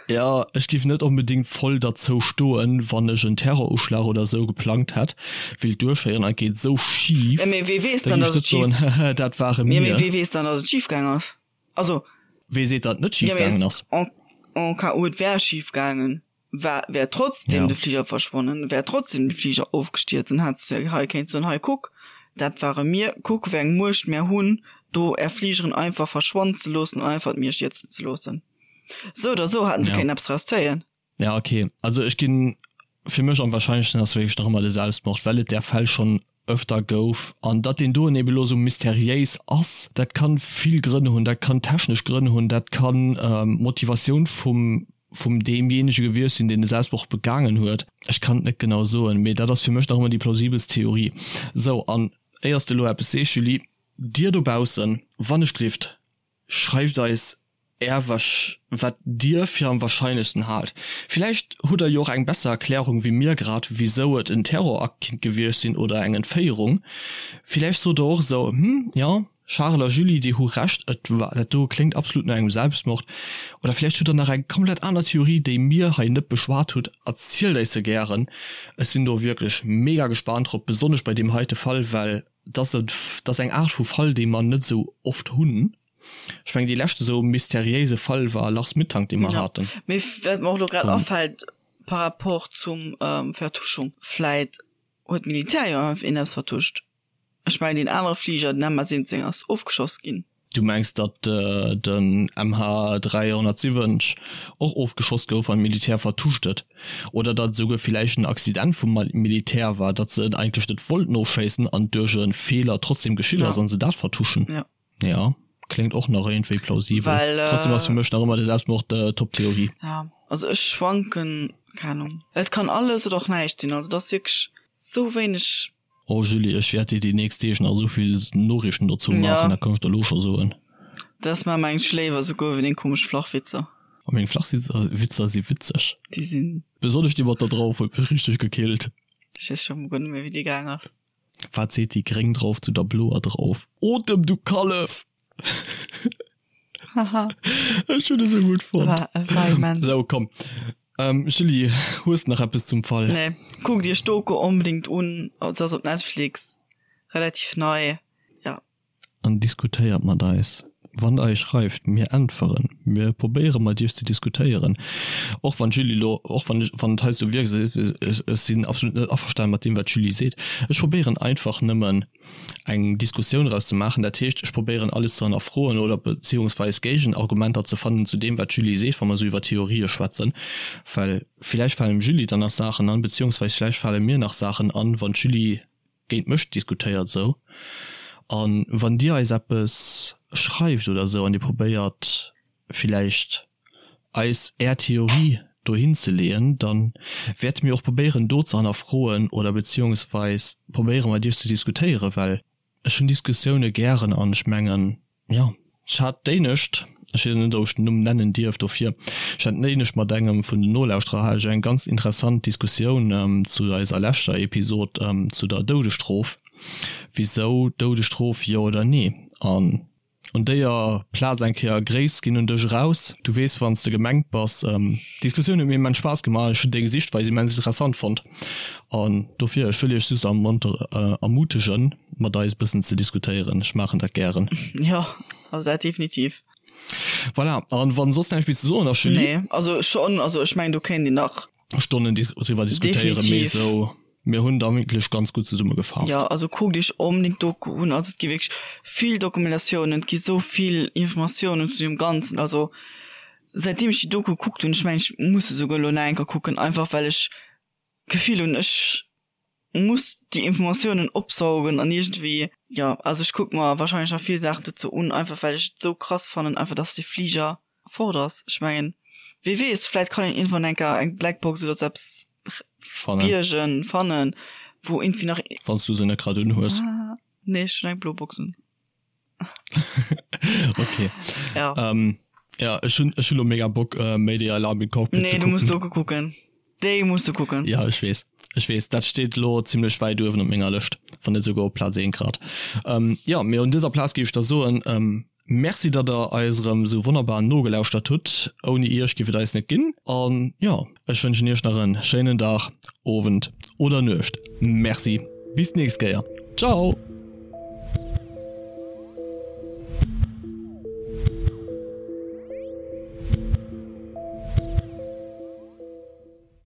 Ja, ech giff net onbedingt voll derzou stoen, wann ech en Terroruschlag oder sou geplangt hätt, willt duerchféieren an et geet sou schif, Ja, mee wee weess dann, da giff dass ech et net soen, schif. hehe, dat ware Ja, mee mir. wee weess dann, dass et schif gaang ass? Also. Wee seet, datt et net Ja, schif mee gaangen ass? en, en cas où et wär schif gaangen, war, wär trotzdem Ja. de Fliger verschwonnen, wär trotzdem de Fliger ofgestierzt, dann hätt se hei kéint soen, hei kuck, dat ware mir, kuck wéi eng Muecht mär hunn, do är Fligeren einfach verschwannen ze loossen an einfach d'Mier stierzen ze loossen. Sou oder sou hätten se Ja. kéinten eppes draus zéien. Ja, okay. Also ech ginn, fir mech am wahrscheinlechsten ass wierklech nach ëmmer de Selbstmord, well et där Fäll schonn öfter gouf. An datt deen doen eben elo sou mysteriéis ass, dat kann vill Grënn hunn. Dat kann technesch Grënn hunn, dat kann d'Motivatioun vum vum deemjéinege gewiescht sinn, deen de Selbstmord begaangen huet. Ech kann et net genau soen, mee dat ass fir mech nach ëmmer déi plausibelst Theorie. Sou, an éiers de elo eppes sees, Julie, dir dobaussen, wann ech glift, schreift eis Är wat Dir fir am wahrscheinlechsten haalt. Villäicht hutt der jo och eng besser Erklärung wéi mir grad, wisou et en Terrorakt kinnt gewiescht sinn oder eng Entféierung. Villäicht sot der och esou, Hm, jo, Charel a Julie, déi hu Recht, et war, dat do kléngt absolut no engem Selbstmord. Oder villäicht hutt der nach eng komplett aner Theorie, déi mir hei net beschwat hutt. Erzielt eis se gären. Ech sinn do wierklech mega gespaant drop, besonnesch bei deem heite Fall, well dat ass eng Aart vu Fall, déi mer net esou oft hunn. Ech mengen dee leschte sou mysteriéise Fall war Lars Mittank dee mer Ja. haten. Mee wat mer och elo grad Vum. afält par rapport zum Vertuschung, vläit huet d'Militär jo einfach een eppes vertuscht. Ech mengen deen anere Fliger, den MH17 ass ofgeschoss ginn. Du mengs datt den MH370 och ofgeschoss gouf an d'Militär vertuscht et? Oder datt et esouguer villäicht en Accident vum Militär war, datt se en eigentlech net wollten ofschéissen an duerch e Feeler trotzdem geschitt ass Ja. an se dat vertuschen? Ja. Ja, kléngt och nach iergendwéi plausibel. Well, äh, Trotzdem ass fir mech nach ëmmer de Selbstmord äh, Top-Theorie. Ja, also ech schwanken, keng Ahnung. Et kann alles oder och näischt sinn, also et ass wierklech sou wéineg. Oh Julie, ech wäert dir déi nächst Deeg nach esou vill Noriichten dozou Ja. maachen, dat kann ech der elo scho soen. Dat ass mer mengt ech léiwer esouguer wéi deng komesch Flachwitzer. Oh, meng Flachwitzer si witzeg. Déi sinn. Besonnesch déi mat der Drauf huet mech richteg gekillt. Ech weess scho guer net méi wéi déi gaang ass. Wat seet déi gréng Drauf zu der bloer Drauf? Otem, du Kallef! Haha. Ech hunn e sou gutt fonnt. War, war immens. Sou, komm. Ähm, Julie, hues de nach eppes zum Fall? Nee. Kuckt iech d'Doku onbedéngt un. Se ass op Netflix. Relativ nei. Ja. An diskutéiert mat eis. Wann der eis schreift, mir äntweren. Mir probéiere mat iech ze diskutéieren. Och wann d'Julie elo, och wann ech, wann et heiansdo wierkt, ech, ech sinn absolut net averstane mat deem wat d'Julie seet. Ech probéieren einfach nëmmen eng Diskussioun draus ze maachen. Dat heescht, ech probéieren alles ze hannerfroen oder beziehungsweis Géigenargumenter ze fannen zu deem wat d'Julie seet, wa mer esou iwwer Theorië schwätzen. Well villäicht falen dem Julie dann nach Saachen an, beziehungsweis villäicht fale mir nach Saachen an, wann d'Julie géint mech diskutéiert esou an wann dir eis eppes schreift oder esou an dir probéiert villäicht eis är Theorie dohin ze leeën, dann wäerte mir och probéieren do ze hannerfroen oder beziehungsweis probéiere mat iech ze diskutéieren, well ech hunn Diskussioune gären an ech mengen Jo, ech hat d'éinescht, ech weess net ob ech den Numm nennen dierf dofir, ech hat d'éinescht mat engem vun den Nolauschterer hat ech eng ganz interessant Diskussioun zu eiser leschter Episod zu der Doudesstrof, wisou Doudesstrof, jo oder nee? An un déier Plaz eng Kéier Gréiss ginn un dech eraus, du weess wann s de gemengt bass. D'Diskussioun huet mir immens Spaass gemaach, ech hunn deng Sichtweis immens interessant fonnt an dofir, ech wëll iech just ermutegen, mat eis e bëssen ze diskutéieren. Ech maachen dat gären. Jo, also dat definitiv. Voilà, an wann soss näischt méi ze soen ass, Julie? Nee, also schonn, also ech mengen do kéint een nach. Stonnen driwwer diskutéieren, mee esou, mir hunn da wierklech ganz gutt zesummegefaasst. Jo, also kuckt iech onbedéngt d'Doku un, also et gi wierklech vill Dokumentatiounen, et gi sou vill Informatiounen zu deem Ganzen, also säitdeem ech déi Doku gekuckt hunn, ech mengen ech muss se souguer elo nach eng Kéier kucken, einfach well ech d'Gefill hunn, ech muss déi Informatiounen opsaugen an iergendwéi, jo, also ech kucke mer wahrscheinlech nach vill Saachen dozou un, einfach well ech et esou krass fannen, einfach dass dee Fliger fort ass. Ech mengen, wee weess, vläit kann een iergendwann eng Kéier eng Blackbox oder sou eppes Fannen. biergen, fannen, wou iergendwéi nach. Wann s du se net grad unhues. Ah, nee, ech hunn eng blo Box un. Okay. Ja. Ähm, ja, ech hunn ech hunn lo mega Bock äh, Mayday Alarm im Cockpit Nee, ze du musst kucken. Doku kucken. Déi musst du kucken. Ja, ech weess. Ech weess, dat steet lo zimmlech wäit uewen op menger Lëscht, wann net souguer op Plaz 1 grad. Ähm, ja, mee un dëser Plaz géif ech da soen, ähm, Merci datt der eis erëm esou wonnerbar nogelauschtert hutt. Ouni iech giff et eis net ginn. An jo, ech wënschen iech nach en schéinen Dag, Owend oder Nuecht. Merci, bis d'nächst Kéier. Ciao!